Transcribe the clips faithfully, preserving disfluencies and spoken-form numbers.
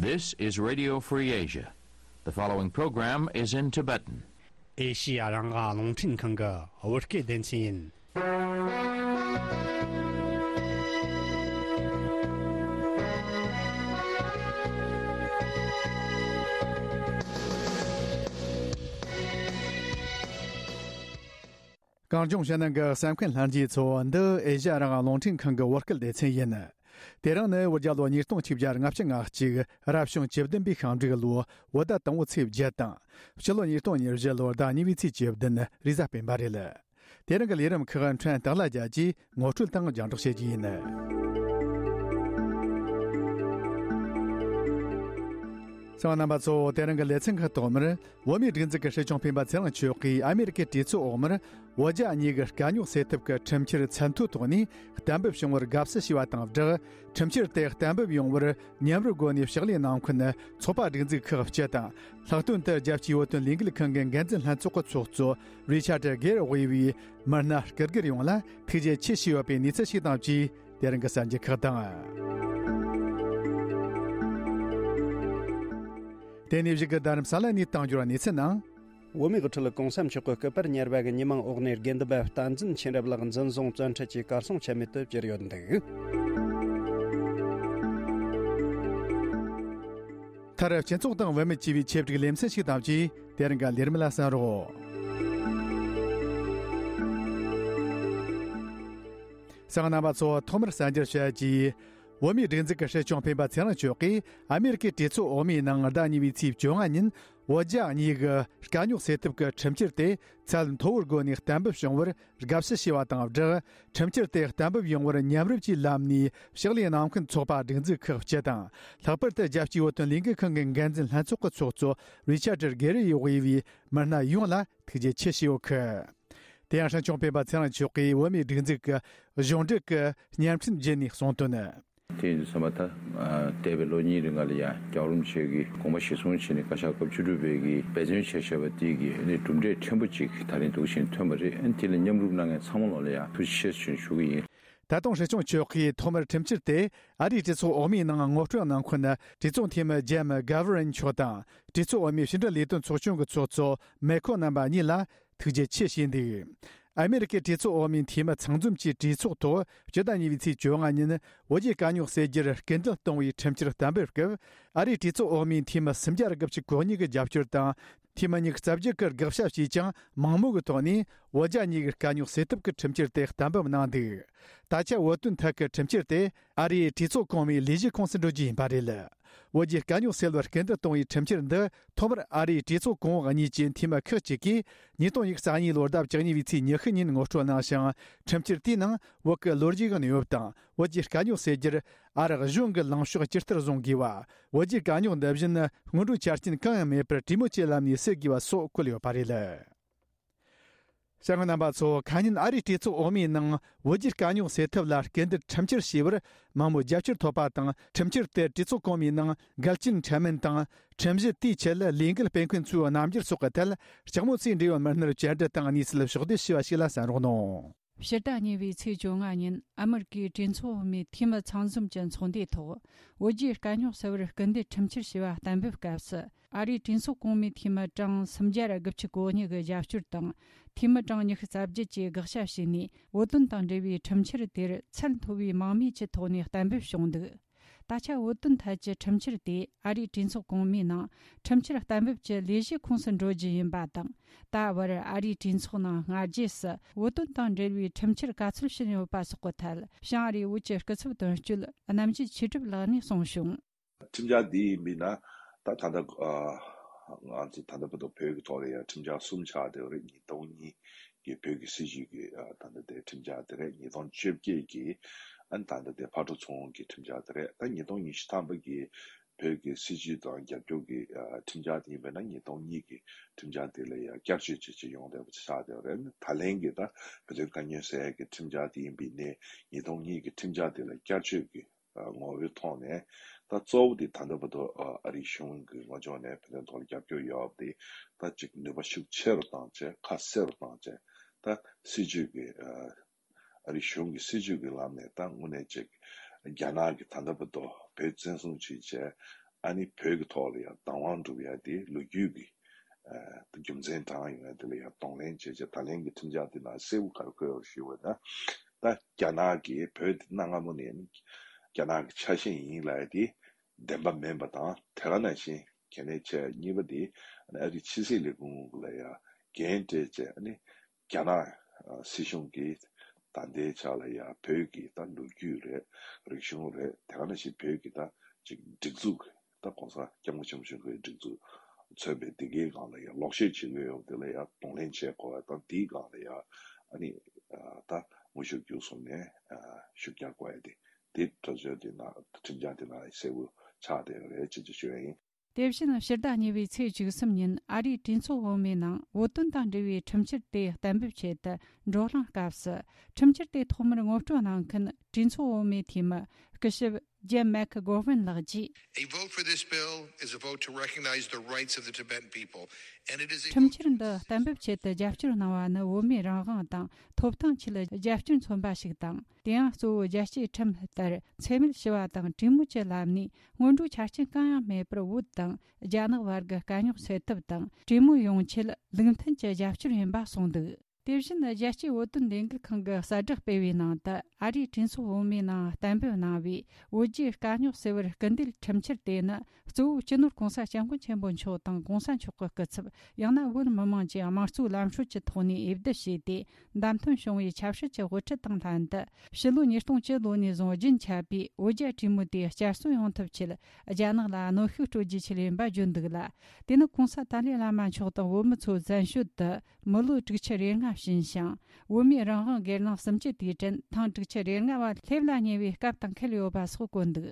This is Radio Free Asia. The following program is in Tibetan. ཨེ་ཤི་ཡ་རང་དབང་རླུང་འཕྲིན་ཁང་གི་བོད་སྐད་སྡེ་ཚན་ཡིན། གངས་ལྗོངས་ཕྱི་ནང་གི་གསན་མཁན་ལྷན་རྒྱས་ཚོ། འདི་ཨེ་ཤ་ཡ་རང་དབང་རླུང་འཕྲིན་ཁང་གི་བོད་སྐད་སྡེ་ཚན་ཡིན། དེ་རིང་ནི་བོད་རྒྱལ་ལོ་ཉིས་སྟོང་ཆིག་བརྒྱ་ལྔ་བཅུ་ང་གཅིག་རབ་བྱུང་བཅུ་བདུན་པའི་ཤིང་འབྲུག་ལོ་བོད་ཟླ་དང་པོའི་ཚེས་བརྒྱད་དང་། ཕྱི་ལོ་ཉིས་སྟོང་ཉེར་བཞི་ལོར་ཟླ་གཉིས་པའི་ཚེས་བཅུ་བདུན་རེས་གཟའ་སྤེན་པ་རེད། དེ་རིང་གི་ལས་རིམ་ཁག་ཕྲན་སྟག་ལྷ་རྒྱལ་གྱིས་ངོ་སྤྲོད་དང་རྒྱང་སྒྲོག་བྱེད་རྒྱུ་ཡིན། གསན་མཁན་རྣམ་པ་ཚོ། དེ་རིང་གི་ལེ་ཚན་ཁག་ཐོག་མར། བོད་མིའི་སྒྲིག་འཛུགས་ཀྱི་སྲིད་སྐྱོང་སྤེན་པ་ཚེ་རིང་མཆོག་གིས་ཨ་མེ་རི་ཀའི་གྲོས་ཚོགས་འོག་མར་བོད་རྒྱ་གཉིས་ཀྱི་དཀའ་རྙོག་སེལ་ཐབས་ཀྱི་ཁྲིམས་འཆར་མཚན་ཐོའི་ཐོག་ནས་གཏན་འབེབས་བྱུང་བར་དགའ་བསུ་ཞུས་པ་དང་སྦྲགས། ཁྲིམས་འཆར་དེ་གཏན་འབེབས་ཡོང་བར་མཉམ་རུབ་སྒོ་ནས་ཕྱག་ལས་གནང་མཁན་ཚོགས་པ་སྒྲིག་འཛུགས་ཁག་སྤྱི་དང་། ལྷག་དོན་དུ་རྒྱལ་སྤྱིའི་བོད་དོན་ལས་འགུལ་ཁང་གི་འགན་འཛིན་ལྷན་ཚོགས་ཀྱི་ཚོགས་གཙོ་རི་ཆར་ཌི་གེར་དབུས་པའི་མི་སྣ་སྐུ་སྒེར་ཡོངས་ལ་ཐུགས་རྗེ་ཆེ་ཞུས་ཡོད་པའི་གནས་ཚུལ་ཞིག་དང་བཅས། དེ་རིང་གི་གསར་འགྱུར་ཁག་དང་། དེ་ནས་གཞུག་གི་རྡ་རམ་ས་ལ་ནས་གཏོང་རྒྱུར་གནས་ཚུལ་ནང་། བོད་མིའི་དབུ་ཁྲིད་གོང་ས་མཆོག་གི་སྐུ་པར་གཉེར་པ་གི་ཉི་མ་འོག་ནས་དགེ་འདུན་པ་བསྟན་འཛིན་མཁྱེན་རབ་ལགས་འཛིན་བཟུང་བཙོན་ཁྲིད་ཀྱིས་གར་སོང་ཆ་མེད་དུ་གྱུར་ཡོད་འདུག་མཐར་སྤྱི་ཚོགས་དང་བུད་མེད་ཅེས་པའི་ཆེད་བསྒྲིགས་ལེ་ཚན་ཞིག་དང་བཅས། དེ་རིང་གི་ལས་རིམ་ལ་གསན་རོགས། གསན་མཁན་རྣམ་པ་ཚོ། ཐོག་མར་གསར་འགྱུར་བཤད་རྒྱུ། བོད་མིའི་སྒྲིག་འཛུགས་ཀྱི་སྲིད་སྐྱོང་སྤེན་པ་ཚེ་རིང་མཆོག་གིས་ཨ་མེ་རི་ཀའི་གྲོས་ཚོགས་འོག་མའི་ནང་ཟླ་གཉིས་པའི་ཚེས་བཅོ་ལྔ་ཉིན་བོད་རྒྱ་གཉིས་ཀྱི་དཀའ་རྙོག་སེལ་ཐབས་ཀྱི་ཁྲིམས་འཆར་དེ་ཚད་མཐོ་བོའི་སྒོ་ནས་གཏན་འབེབས་བྱུང་བར་དགའ་བསུ་ཞུས་པ་དང་སྦྲགས། ཁྲིམས་འཆར་དེ་གཏན་འབེབས་ཡོང་བར་མཉམ་རུབ་ཀྱིས་ལམ་ནས་ཕྱག་ལས་གནང་མཁན་ཚོགས་པ་སྒྲིག་འཛུགས་ཁག་སྤྱི་དང་། ལྷག་པར་དུ་རྒྱལ་སྤྱིའི་བོད་དོན་ལས་འགུལ་ཁང་གི་འགན་འཛིན་ལྷན་ཚོགས་ཀྱི་ཚོགས་གཙོ་རི་ཆར་ཌི་གེར་དབུས་པའི་མི་སྣ་ཡོངས་ལ་ཐུགས་རྗེ་ཆེ་ཞུས་ཡོད་ཁུལ། དེ་ཡང་སྲིད་སྐྱོང་སྤེན་པ་ཚེ་རིང་མཆོག་གིས་བོད་མིའི་སྒྲིག་འཛུགས་ཀྱི་གཞུང་འབྲེལ་གྱི་བརྙན་འཕྲིན་བརྒྱུད་ནས་གསུངས་དོན། དེ་ཡིན་དུས་ཙམ་པ་ད། འདས་པའི་ལོ་གཉིས་རིང་ལ་ཡང་རྒྱལ་བ་རིན་པོ་ཆེ་གིས་དགོངས་པ་གཞིར་བཟུང་བྱས་ནས་བཀའ་ཤག་སྐབས་བཅུ་དྲུག་པའི་གི་འབད་བརྩོན་བྱས་བཞག་པ་དེ་གི་ནི་གྲུབ་འབྲས་ཕྲན་བུ་ཅིག་ད་རིང་འདུག་བཞིན་ཐོན་པ་རེད། དེ་ལ་མཉམ་རུབ་གནང་མཁན་ཚང་མ་ལོག་ལ་ཡང་ཐུགས་རྗེ་ཆེ་ཞུ་ཞུ་གི་ཡིན། ད་དུང་སྲིད་སྐྱོང་མཆོག་གིས་ཐོག་མར་ཁྲིམས་འཆར་དེ་ཨ་རིའི་གྲོས་ཚོགས་འོག་མའི་ནང་ངོ་སྤྲོད་གནང་མཁན་གྲོས་ཚོགས་འཐུས་མི་ཇེམ་གྷ་བྷ་རན་མཆོག་དང་། གྲོས་ཚོགས་འོག་མའི་ཕྱི་འབྲེལ་ལས་དོན་ཚོགས་ཆུང་གི་ཚོགས་གཙོ་མེ་ཁོ་རྣམ་པ་གཉིས་ལ་ཐུགས་རྗེ་ཆེ་ཞུས་འདུག་ཨ་མེ་རི་ཀའི་གྲོས་ཚོགས་འོག་མའི་འཐུས་མི་ཚང་འཛོམས་ཀྱི་གྲོས་ཚོགས་ཐོག་སྤྱི་ཟླ་གཉིས་པའི་ཚེས་བཅོ་ལྔ་ཉིན་བོད་རྒྱའི་དཀའ་རྙོག་སེལ་རྒྱུར་སྐུལ་འདེད་གཏོང་བའི་ཁྲིམས་འཆར་གཏན་འབེབས་སྐབས། ཨ་རིའི་གྲོས་ཚོགས་འོག་མའི་འཐུས་མི་སུམ་བརྒྱ་དགུ་བཅུ་གོ་གཉིས་ཀྱི་རྒྱབ་སྐྱོར་དང་། འཐུས་མི་ཉི་ཤུ་རྩ་བརྒྱད་ཀྱིས་དགག་བྱ་བྱས་ཀྱང་མང་མོས་ཀྱི་ཐོག་ནས་བོད་རྒྱ་གཉིས་ཀྱི་དཀའ་རྙོག་སེལ་ཐབས་ཀྱི་ཁྲིམས་འཆར་དེ་གཏན་འབེབས་གནང་འདུག་ད་ཆ་བོད་དོན་ཐད་ཀྱི་ཁྲིམས་འཆར་དེ་ཨ་རིའི་གྲོས་ཚོགས་གོང་མའི་ལས་བྱེད་ཁོངས་སུ་འགྲོ་རྒྱུ་ཡིན་པ་རེད། བོད་ཀྱི་དཀའ་རྙོག་སེལ་བར་སྐུལ་འདེད་གཏོང་བའི་ཁྲིམས་འཆར་འདི་ཐོག་མར་ཨ་རིའི་གྲོས་ཚོགས་གོང་འོག་གཉིས་ཀྱི་འཐུས་མི་ཁག་ཅིག་གིས་ཉིས་སྟོང་ཉི་ཤུ་རྩ་གཉིས་ལོར་ཟླ་བཅུ་གཉིས་པའི་ཚེས་ཉི་ཤུ་ཉིན་ངོ་སྤྲོད་གནང་ཞིང་། ཁྲིམས་འཆར་དེའི་ནང་བོད་ཀྱི་ལོ་རྒྱུས་ཀྱི་གནས་བབ་དང་། བོད་ཀྱི་དཀའ་རྙོག་སེལ་རྒྱུར་ཨ་རི་གཞུང་གི་ལངས་ཕྱོགས་ཇི་ལྟར་བཟུང་དགོས་པ། བོད་ཀྱི་དཀའ་རྙོག་འདི་བཞིན་སྔོན་འགྲོའི་ཆ་རྐྱེན་གང་ཡང་མེད་པར་གྲོས་མོལ་གྱི་ལམ་ནས་སེལ་དགོས་པ་སོགས་བཀོད་ཡོད་པ་རེད། གསན་མཁན་རྣམ་པ་ཚོ། ཁ་ཉིན་ཨ་རིའི་གྲོས་ཚོགས་འོག་མའི་ནང་བོད་རྒྱའི་དཀའ་རྙོག་སེལ་ཐབས་ལ་སྐུལ་འདེད་ཁྲིམས་འཆར་ཞེས་པར་མང་མོས་རྒྱབ་སྐྱོར་ཐོབ་པ་དང་། ཁྲིམས་འཆར་དེར་གྲོས་ཚོགས་གོང་མའི་ནང་འགལ་རྐྱེན་འཕྲད་མིན་དང་། ཁྲིམས་གཞི་དེའི་ཆེད་ལས་འགུལ་སྤེལ་མཁན་ཚོའི་རྣམ་འགྱུར་སོགས་ཀྱི་ཐད་ལྕགས་མོ་ཚོས་འབྲེལ་ཡོད་མི་སྣར་བཅར་འདྲི་དང་གནས་ཚུལ་ཕྱོགས་བསྡུས་ཞུས་པ་ཞིག་ལ་གསན་རོགས་གནང་། ཕྱི་ཟླ་གཉིས་པའི་ཚེས་བཅོ་ལྔ་ཉིན་ཨ་མེ་རི་ཀའི་གྲོས་ཚོགས་འོག་མའི་འཐུས་མི་ཚང་འཛོམས་ཀྱི་ཚོགས་འདུའི་ཐོག་བོད་རྒྱའི་དཀའ་རྙོག་སེལ་བར་སྐུལ་འདེད་ཁྲིམས་འཆར་ཞེས་པ་གཏན་འབེབས་སྐབས་སུ། ཨ་རིའི་གྲོས་ཚོགས་གོང་མའི་འཐུས་མི་གྲངས་སུམ་བརྒྱ་དགུ་བཅུ་གོ་གཉིས་ཀྱི་རྒྱབ་སྐྱོར་དང་། འཐུས་མི་གྲངས་ཉི་ཤུ་རྩ་བརྒྱད་ཀྱིས་དགག་བྱ་བྱས་ནས། བོད་དོན་དང་འབྲེལ་བའི་ཁྲིམས་འཆར་དེར་ཚད་མཐོ་བའི་མང་མོས་ཀྱི་ཐོག་ནས་གཏན་འབེབས་བྱུང་འདུག་ད་ཆ་བོད་དོན་ཐད་ཀྱི་ཁྲིམས་འཆར་དེ་ཨ་རིའི་གྲོས་ཚོགས་གོང་མའི་ནང་ཁྲིམས་འཆར་གཏན་འབེབས་ཀྱི་ལས་གཞིའི་ཁོངས་སུ་འགྲོ་རྒྱུ་ཡིན་པ་དང་། ད་བར་ཨ་རིའི་གྲོས་ཚོགས་ནང་སྔ་རྗེས་སུ་བོད་དོན་དང་འབྲེལ་བའི་ཁྲིམས་འཆར་ག་ཚོད་ཕྱིན་ཡོད་པ་སོགས་ཀྱི་ཐད་བྱང་ཨ་རིའི་བོད་ཀྱི་སྐུ་ཚབ་དོན་གཅོད་རྣམ་རྒྱལ་ཆོས་གྲུབ་ལགས་ནས་གསུངས་བྱུང་། ཁྲིམས་འཆར་འདི་ཡིན་པས་ན། ད་ད་ལྟ་ཨ་ང་ཚོ་ད་ལྟ་བར་དུ་བོད་ཀྱི་ཐོག་ལ་ཡང་ཁྲིམས་འཆར་གསུམ་ཆགས་བསྡད་ཡོད་རེད། ཉིས་སྟོང་གཉིས་ཀྱི་བོད་ཀྱི་སྲིད་བྱུས་ཀྱི་ཨ་ད་ལྟ་དེ་ཁྲིམས་འཆར་དེ་རེད། ཉིས་སྟོང་བཅོ་བརྒྱད་ཀྱི་ཨ་ད་ལྟ་དེ་ཕར་འགྲོ་ཚུར་འོང་གི་ཁྲིམས་འཆར་དེ་རེད། ད་ཉིས་སྟོང་ཉི་ཤུ་ཐམ་པ་གི་བོད་ཀྱི་སྲིད་བྱུས་དང་རྒྱབ་སྐྱོར་གྱི་ཨ་ཁྲིམས་འཆར་དེ་ཡིན་པས་ན། ཉིས་སྟོང་གཉིས་ཀྱི་ཁྲིམས་འཆར་དེ་ལ་ཡང་བསྐྱར་བཅོས་བྱས་བྱས་ཡོང་བསྡད་པ་ཆགས་བསྡད་ཡོད་རེད། ད་ལན་གྱི་ད་བོད་དོན་དཀའ་རྙོག་སེལ་ཡག་གི་ཁྲིམས་འཆར་དེ་ཡིན་པས་ནས་ཉིས་སྟོང་གཉིས་ཀྱི་ཁྲིམས་འཆར་དེ་ལ་བསྐྱར་བཅོས་ཀྱི་ངོ་བོའི་ཐོག་ནས། ད་གཙོ་བོ་དེ་ད་ལྟ་བར་དུ་ཨ་རིའི་གཞུང་གི་ངོས་ཕྱོགས་ནས་བོད་དོན་ཐོག་ལ་རྒྱབ་སྐྱོར་ཡོད་པ་དེ་ད་ཅིག་ནུས་པ་ཤུགས་ཆེ་རུ་བཏང་བྱས། ཁ་གསལ་རུ་བཏང་བྱས། ད་སྲིད་བྱུས་ཀྱི་ཨ་རིའི་གཞུང་གི་སྲིད་བྱུས་ཀྱི་ལམ་ནས་ད་དངོས་གནས་ཅིག་རྒྱ་ནག་གིས་ད་ལྟ་བར་དུ་བོད་བཙན་བཟུང་བྱས་བྱས། ཨ་ནི་བོད་ཀྱི་ཐོག་ལ་ཡང་བདག་དབང་སྒྲུབ་ཡ་དེ་ལོ་རྒྱུས་ཀྱི་ཨ་རྒྱུ་མཚན་དྲངས་ཡོང་ཡ་དེ་ལ་ཡང་གདོང་ལེན་བྱས་བྱས། ད་ལན་གྱི་ཁྲིམས་འཆར་དེ་ནང་གསལ་པོ་ག་རེ་འཁོད་ཡོད་ཞུས་པ་ན། ད་རྒྱ་ནག་གིས་བོད་དེ་གནའ་སྔ་མོ་ནས་རྒྱ་ནག་གི་ཆ་ཤས་ཡིན་ལབ་ཡ་དེ་བདེན་པ་མིན་པ་དང་། དེ་ག་ནང་བཞིན་གལ་གནད་ཆེ་གཉིས་པ་དེ་ཨ་རིའི་ཕྱི་སྲིད་ལས་ཁུངས་ལ་ཡང་འགན་སྤྲད་བྱས། ཨ་ནི་རྒྱ་ནག་སྲིད་གཞུང་གིས་ད་ལྟའི་ཆ་ལ་ཡང་བོད་ཀྱི་ད་ལོ་རྒྱུས་རེད། རིག་གཞུང་རེད། དེ་ག་ནང་བཞིན་བོད་ཀྱི་ད་ཅིག་སྒྲིག་འཛུགས། ད་༸གོང་ས་༸སྐྱབས་མགོན་ཆེན་པོ་མཆོག་གིས་སྒྲིག་འཛུགས་མཚོན་པའི་དེ་གའི་སྒང་ལ་ཡང་ལོག་བཤད་བྱེད་ཀྱི་ཡོད་པ་དེ་ལ་ཡང་གདོང་ལེན་བྱེད་དགོས་པ་དང་། དེའི་སྒང་ལ་ཡང་ཨ་ནི་ད་དངོས་ཤུགས་བརྒྱུད་གསུམ་ནས་ཤུགས་རྒྱག་དགོས་ཡ་དེ། དེ་གྲོས་ཆོད་དེ་ནང་ཁྲིམས་འཆར་དེ་ནང་གསལ་པོ་ཆགས་བསྡད་ཡོད་རེད་ཅེས་ཅེས་ཞུ་ཡ་ཡིན། དེ་བཞིན་ཕྱི་ཟླ་གཉིས་པའི་ཚེས་བཅུ་གསུམ་ཉིན་ཨ་རིའི་གྲོས་ཚོགས་འོག་མའི་ནང་བོད་དོན་དང་འབྲེལ་བའི་ཁྲིམས་འཆར་དེ་གཏན་འབེབས་ཆེད་དུ་བགྲོ་གླེང་སྐབས་སུ། ཁྲིམས་འཆར་དེ་ཐོག་མར་ངོ་སྤྲོད་གནང་མཁན་གྲོས་ཚོགས་འོག་མའི་འཐུས་མི་སྐུ་ཞབས་ཇེམ་མེག་གྷོ་ཝན་ལགས་ཀྱིས། A vote for this bill is a vote to recognize the rights of the Tibetan people, and it is a ཁྲིམས་འཆར་འདི་གཏན་འབེབས་ཆེད་དུ་རྒྱབ་སྐྱོར་གནང་བ་ནི་བོད་མིའི་རང་དབང་དང་ཐོབ་ཐང་ཆེད་རྒྱབ་སྐྱོར་མཚོན་པ་ཞིག་དང་། དེ་ཡང་གཙོ་བོ་རྒྱལ་གཅེས་ཁྲིམས་ལྟར་འཚེ་མེད་ཞི་བ་དང་གྲོས་མོལ་གྱི་ལམ་ནས་སྔོན་འགྲོའི་ཆ་རྐྱེན་གང་ཡང་མེད་པར་བོད་དང་རྒྱ་ནག་བར་གྱི་དཀའ་རྙོག་སེལ་ཐབས་དང་། གྲོས་མོལ་ཡོང་ཆེད་ལུགས་མཐུན་གྱི་རྒྱབ་སྐྱོར་ཡིན་པ་གསུངས་འདུག་དེ་བཞིན་རྒྱལ་སྤྱིའི་བོད་དོན་ལས་འགུལ་ཁང་གི་གསལ་བསྒྲགས་སྤེལ་བའི་ནང་དུ། ཨ་རིའི་གྲོས་ཚོགས་འོག་མའི་ནང་གཏན་འབེབས་གནང་བའི་བོད་རྒྱའི་དཀའ་རྙོག་སེལ་བར་སྐུལ་འདེད་ཁྲིམས་འཆར་དེ་ནི། གཙོ་བོ་སྤྱི་ནོར་༸གོང་ས་༸སྐྱབས་མགོན་ཆེན་པོ་མཆོག་དང་༸གོང་ས་མཆོག་གི་སྐུ་ཚབ། ཡང་ན་བོད་མི་མང་གིས་དམངས་གཙོའི་ལམ་སྲོལ་གྱི་ཐོག་ནས་འོས་བསྡུ་བྱས་ཏེ་བདམས་ཐོན་བྱུང་བའི་ཆབ་སྲིད་ཀྱི་དབུ་ཁྲིད་དང་ལྷན་དུ། ཕྱི་ལོ་ཉིས་སྟོང་བཅུ་ལོ་ནས་བཟུང་རྒྱུན་ཆད་པའི་བོད་རྒྱ་གྲོས་མོལ་དེ་བསྐྱར་གསོ་ཡོང་ཐབས་ཆེད། རྒྱ་ནག་ལ་གནོན་ཤུགས་སྤྲོད་རྒྱུ་ཆེད་ཡིན་པ་བརྗོད་འདུག་ལ། དེ་ནི་༸གོང་ས་ཏཱ་ལའི་བླ་མ་མཆོག་དང་བོད་མི་ཚོ་བཙན་བྱོལ་དུ་མི་ལོ་དྲུག་ཅུ་རེ་ལྔ་ཕྱིན་ཞིང་། བོད་མིའི་རང་དབང་སྒེར་ལངས་གསུམ་བཅུ་དུས་དྲན་ཐེངས་དྲུག་ཅུ་རེ་ལྔ་བ་སླེབས་ལ་ཉེ་བའི་སྐབས་དང་འཁེལ་ཡོད་པ་སོགས་བཀོད་འདུག་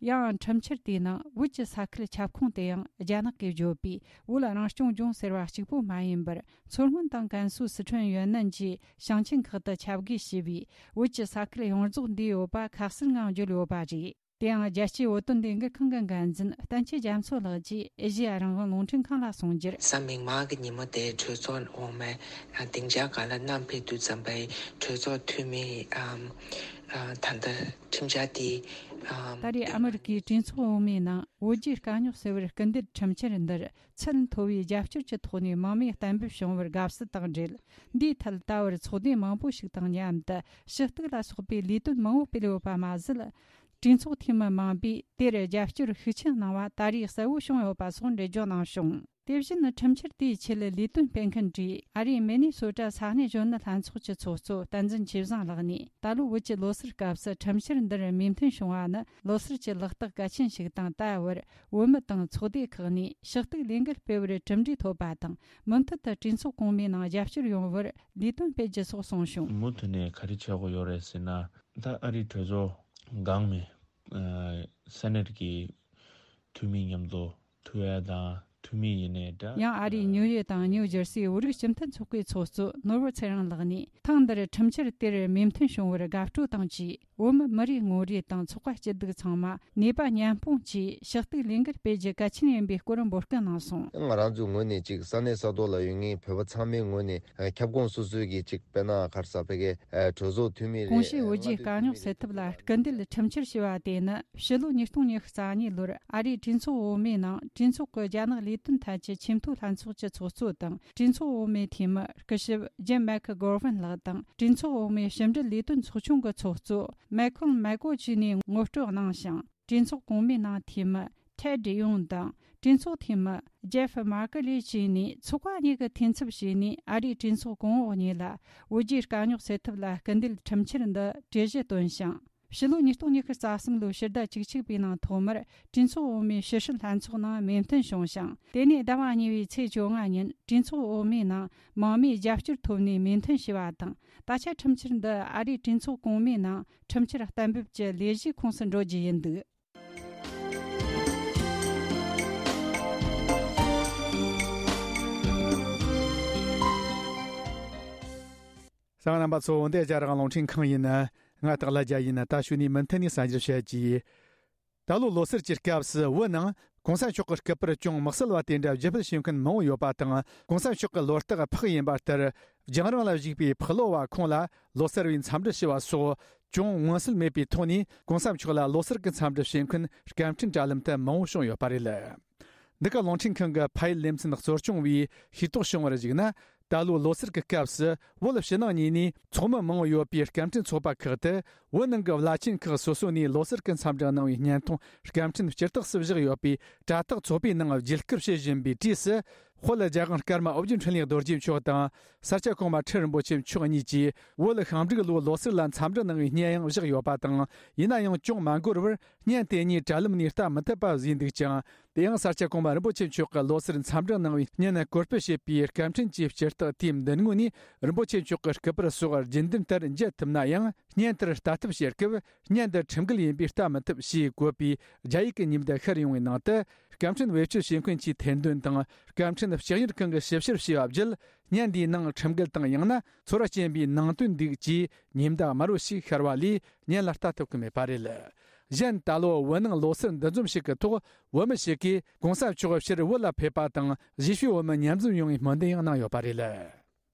ཡང་ཁྲིམས་འཆར་དེའི་ནང་བོད་ཀྱི་ས་ཁུལ་ཁྱབ་ཁོངས་དེ་ཡང་རྒྱ་ནག་གིས་བརྗོད་པའི་བོད་རང་སྐྱོང་ལྗོངས་ཟེར་བ་གཅིག་པུ་མ་ཡིན་པར། མཚོ་སྔོན་དང་ཀན་སུའུ། སི་ཁྲོན། ཡོན་ནན་བཅས་ཞིང་ཆེན་ཁག་ཏུ་ཁྱབ་བགོས་བྱས་པའི་བོད་ཀྱི་ས་ཁུལ་ཡོངས་རྫོགས་འདུས་ཡོད་པ་ཁ་གསལ་ངང་བརྗོད་ཡོད་པ་རེད། དེ་ཡང་རྒྱལ་སྤྱིའི་བོད་དོན་ལས་འགུལ་ཁང་གི་འགན་འཛིན་བསྟན་ཆོས་རྒྱ་མཚོ་ལགས་ཀྱིས་ཨེ་ཤེ་ཡ་རང་དབང་རླུང་འཕྲིན་ཁང་ལ་གསུངས་རྒྱུར། གཟའ་མིག་དམར་གྱི་ཉིན་མོ་དེ་གྲོས་ཚོགས་འོག་མའི་སྡིངས་ཆ་སྒང་ལ་བསྣམས་ཕེབས་དུས་ཙམ་པའི་གྲོས་ཚོགས་འཐུས་མི་ཨམ་ཨ་ད་ལྟ་ཁྲིམས་འཆར་དེ་ཨམ་ད་རེས་ཨ་མི་རི་ཀའི་གྲོས་ཚོགས་འོག་མའི་ནང་བོད་རྒྱའི་དཀའ་རྙོག་སེལ་བར་སྐུལ་འདེད་ཁྲིམས་འཆར་འདིར་ཚད་མཐོ་བའི་རྒྱབ་སྐྱོར་གྱི་ཐོག་ནས་མང་མོས་གཏན་འབེབས་བྱུང་བར་དགའ་བསུ་དང་འབྲེལ། འདིའི་ཐད་ད་བར་ཚོགས་སྡེ་མང་པོ་ཞིག་དང་མཉམ་དུ་ཞུ་གཏུག་ལ་སོགས་པའི་ལས་དོན་མང་པོ་སྤེལ་ཡོད་པ་མ་ཟད། གྲོས་ཚོགས་འཐུས་མི་མང་པོས་དེར་རྒྱབ་སྐྱོར་ཤུགས་ཆེན་གནང་བ་ད་རེས་གསལ་བོ་བྱུང་ཡོད་པ་སོགས་འགྲེལ་བརྗོད་གནང་བྱུང་། དེ་བཞིན་ཁྲིམས་འཆར་དེའི་ཆེད་ལས་དོན་སྤེལ་མཁན་གྱི་ཨ་རིའི་མི་ནི་སོ་ཊ་ས་གནས་གཞོན་ནུ་ལྷན་ཚོགས་ཀྱི་ཚོགས་གཙོ་བསྟན་འཛིན་ཆོས་བཟང་ལགས་ནས། ད་ལོ་བོད་ཀྱི་ལོ་སར་སྐབས་སུ་ཁྲིམས་འཆར་འདིར་མོས་མཐུན་བྱུང་བ་ནི་ལོ་སར་གྱི་ལག་རྟགས་གལ་ཆེན་ཞིག་དང་། ད་བར་བོད་མི་དང་ཚོགས་སྡེ་ཁག་ནས་ཞུ་གཏུག་ལས་འགུལ་སྤེལ་བར་གྲུབ་འབྲས་ཐོབ་པ་དང་། མུ་མཐུད་དུ་གྲོས་ཚོགས་གོང་མའི་ནང་རྒྱབ་སྐྱོར་ཡོང་བར་ལས་དོན་སྤེལ་རྒྱུ་སོགས་གསུངས་བྱུང་། མུ་མཐུད་ནས་ག་རེ་བྱེད་དགོས་ཡོད་རེད་ཟེར་ན། ད་ཨ་རིའི་གྲོས་ཚོགས་སྒང་མའི་ཨ་སེ་ནེ་ཊི་གི་འཐུས་མི་མཉམ་དུ་ཐུག་ཡ་དང་། འཐུས་མི་ཡིན་ནའི་འདྲ། ཡང་ཨ་རིའི་ཉིའུ་ཡོག་དང་ཉིའུ་ཇར་སིའི་བོད་རིགས་སྤྱི་མཐུན་ཚོགས་པའི་ཚོགས་གཙོ་ནོར་བུ་ཚེ་རིང་ལགས་ནས། ཐེངས་འདིར་ཁྲིམས་འཆར་དེར་མོས་མཐུན་བྱུང་བར་དགའ་སྤྲོ་དང་བཅས། བོད་མི་མི་རེ་ངོ་རེ་དང་ཚོགས་པ་སྐྱིད་སྡུག་ཚང་མ་ནུས་པ་མཉམ་སྤུངས་ཀྱིས་ཞུ་གཏུག་ལས་འགུལ་སྤེལ་རྒྱུ་གལ་ཆེན་ཡིན་པའི་སྐོར་འབོད་སྐུལ་གནང་སོང་། ང་རང་ཚོའི་ངོས་ནས་ཅིག་ས་གནས་ས་ཐོག་ལ་ཡོད་མཁན་བོད་པ་ཚང་མའི་ངོས་ནས་ཁྱབ་ཁོངས་སོ་སོའི་གི་ཅིག་དཔེར་ན་ག་རེ་ཟེར་བོད་ཀྱི་གྲོས་ཚོགས་འཐུས་མི་རེད། གོང་ཞུས་བོད་རྒྱའི་དཀའ་རྙོག་སེལ་ཐབས་ལ་སྐུལ་འདེད་ཁྲིམས་འཆར་ཞེས་པ་དེ་ནི་ཕྱི་ལོ་ཉིས་སྟོང་ཉི་ཤུ་རྩ་གཉིས་ལོར་ཨ་རིའི་གྲོས་ཚོགས་འོག་མའི་ནང་གྲོས་ཚོགས་ཀྱི་རྒྱ་ནག་ལས་དོན་ཐད་ཀྱི་ཆེས་མཐོའི་ལྷན་ཚོགས་ཀྱི་ཚོགས་གཙོ་དང་། གྲོས་ཚོགས་འོག་མའི་འཐུས་མི་སྐུ་ཞབས་ཇིམ་མེག་གྷོ་ཝན་ལགས་དང་། གྲོས་ཚོགས་འོག་མའི་ཕྱི་འབྲེལ་ལས་དོན་ཚོགས་ཆུང་གི་ཚོགས་གཙོ་མེ་ཁོན་མེ་ཀོ་བཅས་ནས་ངོ་སྤྲོད་གནང་ཞིང་། གྲོས་ཚོགས་གོང་མའི་ནང་འཐུས་མི་ཐེད་ཌི་ཡོང་དང་། གྲོས་ཚོགས་འཐུས་མི་ཇེ་ཧྥི་མར་ཀེ་ལི་བཅས་ནས་ཚོགས་པ་གཉིས་ཀྱི་འཐུས་ཚབ་བྱས་ནས། ཨ་རིའི་གྲོས་ཚོགས་གོང་འོག་གཉིས་ལ་བོད་རྒྱའི་དཀའ་རྙོག་སེལ་ཐབས་ལ་སྐུལ་འདེད་ཁྲིམས་འཆར་འདི་གྲོས་གཞི་བཏོན་ཞིང་། ཕྱི་ལོ་ཉིས་སྟོང་ཉི་ཤུ་རྩ་གསུམ་ལོའི་ཕྱི་ཟླ་བཅུ་གཅིག་པའི་ནང་ཐོག་མར་གྲོས་ཚོགས་འོག་མའི་ཕྱི་སྲིད་ལྷན་ཚོགས་ནང་མོས་མཐུན་བྱུང་ཞིང་། དེ་ནས་ཟླ་བ་གཉིས་པའི་ཚེས་བཅོ་ལྔ་ཉིན་གྲོས་ཚོགས་འོག་མའི་ནང་མང་མོས་རྒྱབ་སྐྱོར་ཐོབ་ནས་མོས་མཐུན་བྱས་པ་དང་། ད་ཆ་ཁྲིམས་འཆར་འདི་ཨ་རིའི་གྲོས་ཚོགས་གོང་མའི་ནང་ཁྲིམས་འཆར་གཏན་འབེབས་ཀྱི་ལས་གཞིའི་ཁོངས་སུ་འགྲོ་རྒྱུ་ཡིན་འདུག་གསན་མཁན་རྣམ་པ་ཚོ། འདི་རྒྱ་རིགས་རླུང་འཕྲིན་ཁང་ཡིན། ང་སྟག་ལྷ་རྒྱལ་ཡིན། ད་ཞུ་ནས་མུ་མཐུད་ནས་གསར་འགྱུར་བཤད་རྒྱུ། ད་ལོ་ལོ་སར་གྱི་སྐབས་སུ་བོད་ནང་༸གོང་ས་མཆོག་གི་སྐུ་པར་ཅུང་དམིགས་བསལ་བ་དེ་འདྲ་བརྒྱུད་སྤེལ་བྱེད་མཁན་མང་བོ་ཡོད་པ་དང་། ༸གོང་ས་མཆོག་གི་ལོ་རྟགས་ཕག་ཡིན་པ་ལྟར། རྒྱང་རིང་ལ་བཞུགས་པའི་ཕག་ལོ་བ་ཁོང་ལ་ལོ་སར་བའི་འཚམས་འདྲི་ཞུ་བ་སོགས། ཅུང་མངོན་གསལ་མེད་པའི་ཐོག་ནས་གོང་ས་མཆོག་ལ་ལོ་གསར་གྱི་འཚམས་འདྲི་བྱེད་མཁན་སྐད་འཕྲིན་དྲ་ལམ་དུ་མང་བོ་བྱུང་ཡོད་པ་རེད། འདི་ག་རླུང་འཕྲིན་ཁང་གི་ཕ་ཡུལ་ལེ་ཚན་གཙོ་སྐྱོང་བས་ཤེས་རྟོགས་བྱུང་བར་གཞིགས་ན། ད་ལོའི་ལོ་གསར་གྱི་སྐབས་སུ་བོད་ཕྱི་ནང་གཉིས་ནས་ཚོགས་མི་མང་བོ་ཡོད་པའི་སྐད་འཕྲིན་ཚོགས་པ་ཁག་ཏུ་བོད་ནང་གི་བླ་ཆེན་ཁག་སོ་སོ་ནས་ལོ་གསར་གྱི་འཚམས་འདྲི་གནང་བའི་བརྙན་ཐུང་སྐད་འཕྲིན་སྤྱི་རྟགས་སུ་བཞག་ཡོད་པའི་དྲ་ཐག་ཚོགས་པའི་ནང་བརྒྱུད་སྐུར་བྱེད་བཞིན་པའི་དུས་སུ། དཔལ་རྒྱལ་དབང་ཀརྨ་ཨོ་རྒྱན་འཕྲིན་ལས་རྡོ་རྗེ་མཆོག་དང་ས་སྐྱ་གོང་མ་ཁྲི་རིན་པོ་ཆེ་མཆོག་གཉིས་ཀྱིས་བོད་ཤིང་འབྲུག་ལོའི་ལོ་གསར་ལ་འཚམས་འདྲི་གནང་བའི་བརྙན་ཡང་བཞག་ཡོད་པ་དང་། ཡིན་ན་ཡང་ཅུང་མ་འགོར་བར་བརྙན་དེ་གཉིས་དྲ་ལམ་ནས་ལྟ་མི་ཐུབ་པ་བཟོས་འདུག་ཅིང་། དེ་ཡང་ས་སྐྱ་གོང་མ་རིན་པོ་ཆེ་མཆོག་གི་ལོ་གསར་འཚམས་འདྲི་གནང་བའི་བརྙན་བཀོད་སྤེལ་བྱས་པའི་སྐད་འཕྲིན་གྱི་སྤྱི་རྟགས་དེའི་མདུན་ངོས་ནས་རིན་པོ་ཆེ་མཆོག་གི་སྐུ་པར་སོགས་རྒྱུན་ལྡན་ལྟར་མཇལ་ཐུབ་ན་ཡང་། བརྙན་དེར་ལྟ་ཐབས་བྱེད་སྐབས་བརྙན་འདི་ཁྲིམས་འགལ་ཡིན་པས་ལྟ་མི་ཐུབ་ཞེས་བཀོད་པའི་རྒྱ་ཡིག་གི་ཉིན་བརྡ་ཤར་ཡོང་བའི་ནང་དུ། སྐད་འཕྲིན་བེད་སྤྱོད་བྱེད་མཁན་གྱི་ཐེར་འདོན་དང་སྐད་འཕྲིན་ལྕགས་གཉེར་ཁང་གིས་ཞིབ་བཤེར་བྱས་པ་བརྒྱུད། བརྙན་འདིའི་ནང་ཁྲིམས་འགལ་དང་ཡང་ན་ཚོར་བ་སྐྱེན་པའི་ནང་དོན་འདུག་ཅེས་ཉིན་བརྡ་དམར་པོ་ཞིག་ཤར་བ་ལས་བརྙན་ལ་ལྟ་ཐུབ་ཀྱི་མེད་པ་རེད། གཞན་ད་ལོ་བོད་ནང་ལོ་གསར་འདུ་འཛོམས་ཤིག་གི་ཐོག་བོད་མི་ཞིག་གིས་གོང་ས་མཆོག་ཕྱིར་བོད་ལ་ཕེབས་པ་དང་གཞིས་བྱེས་བོད་མི་མཉམ་འཛོམས་ཡོང་བའི་སྨོན་འདུན་ཡང་གནང་ཡོད་པ་རེད།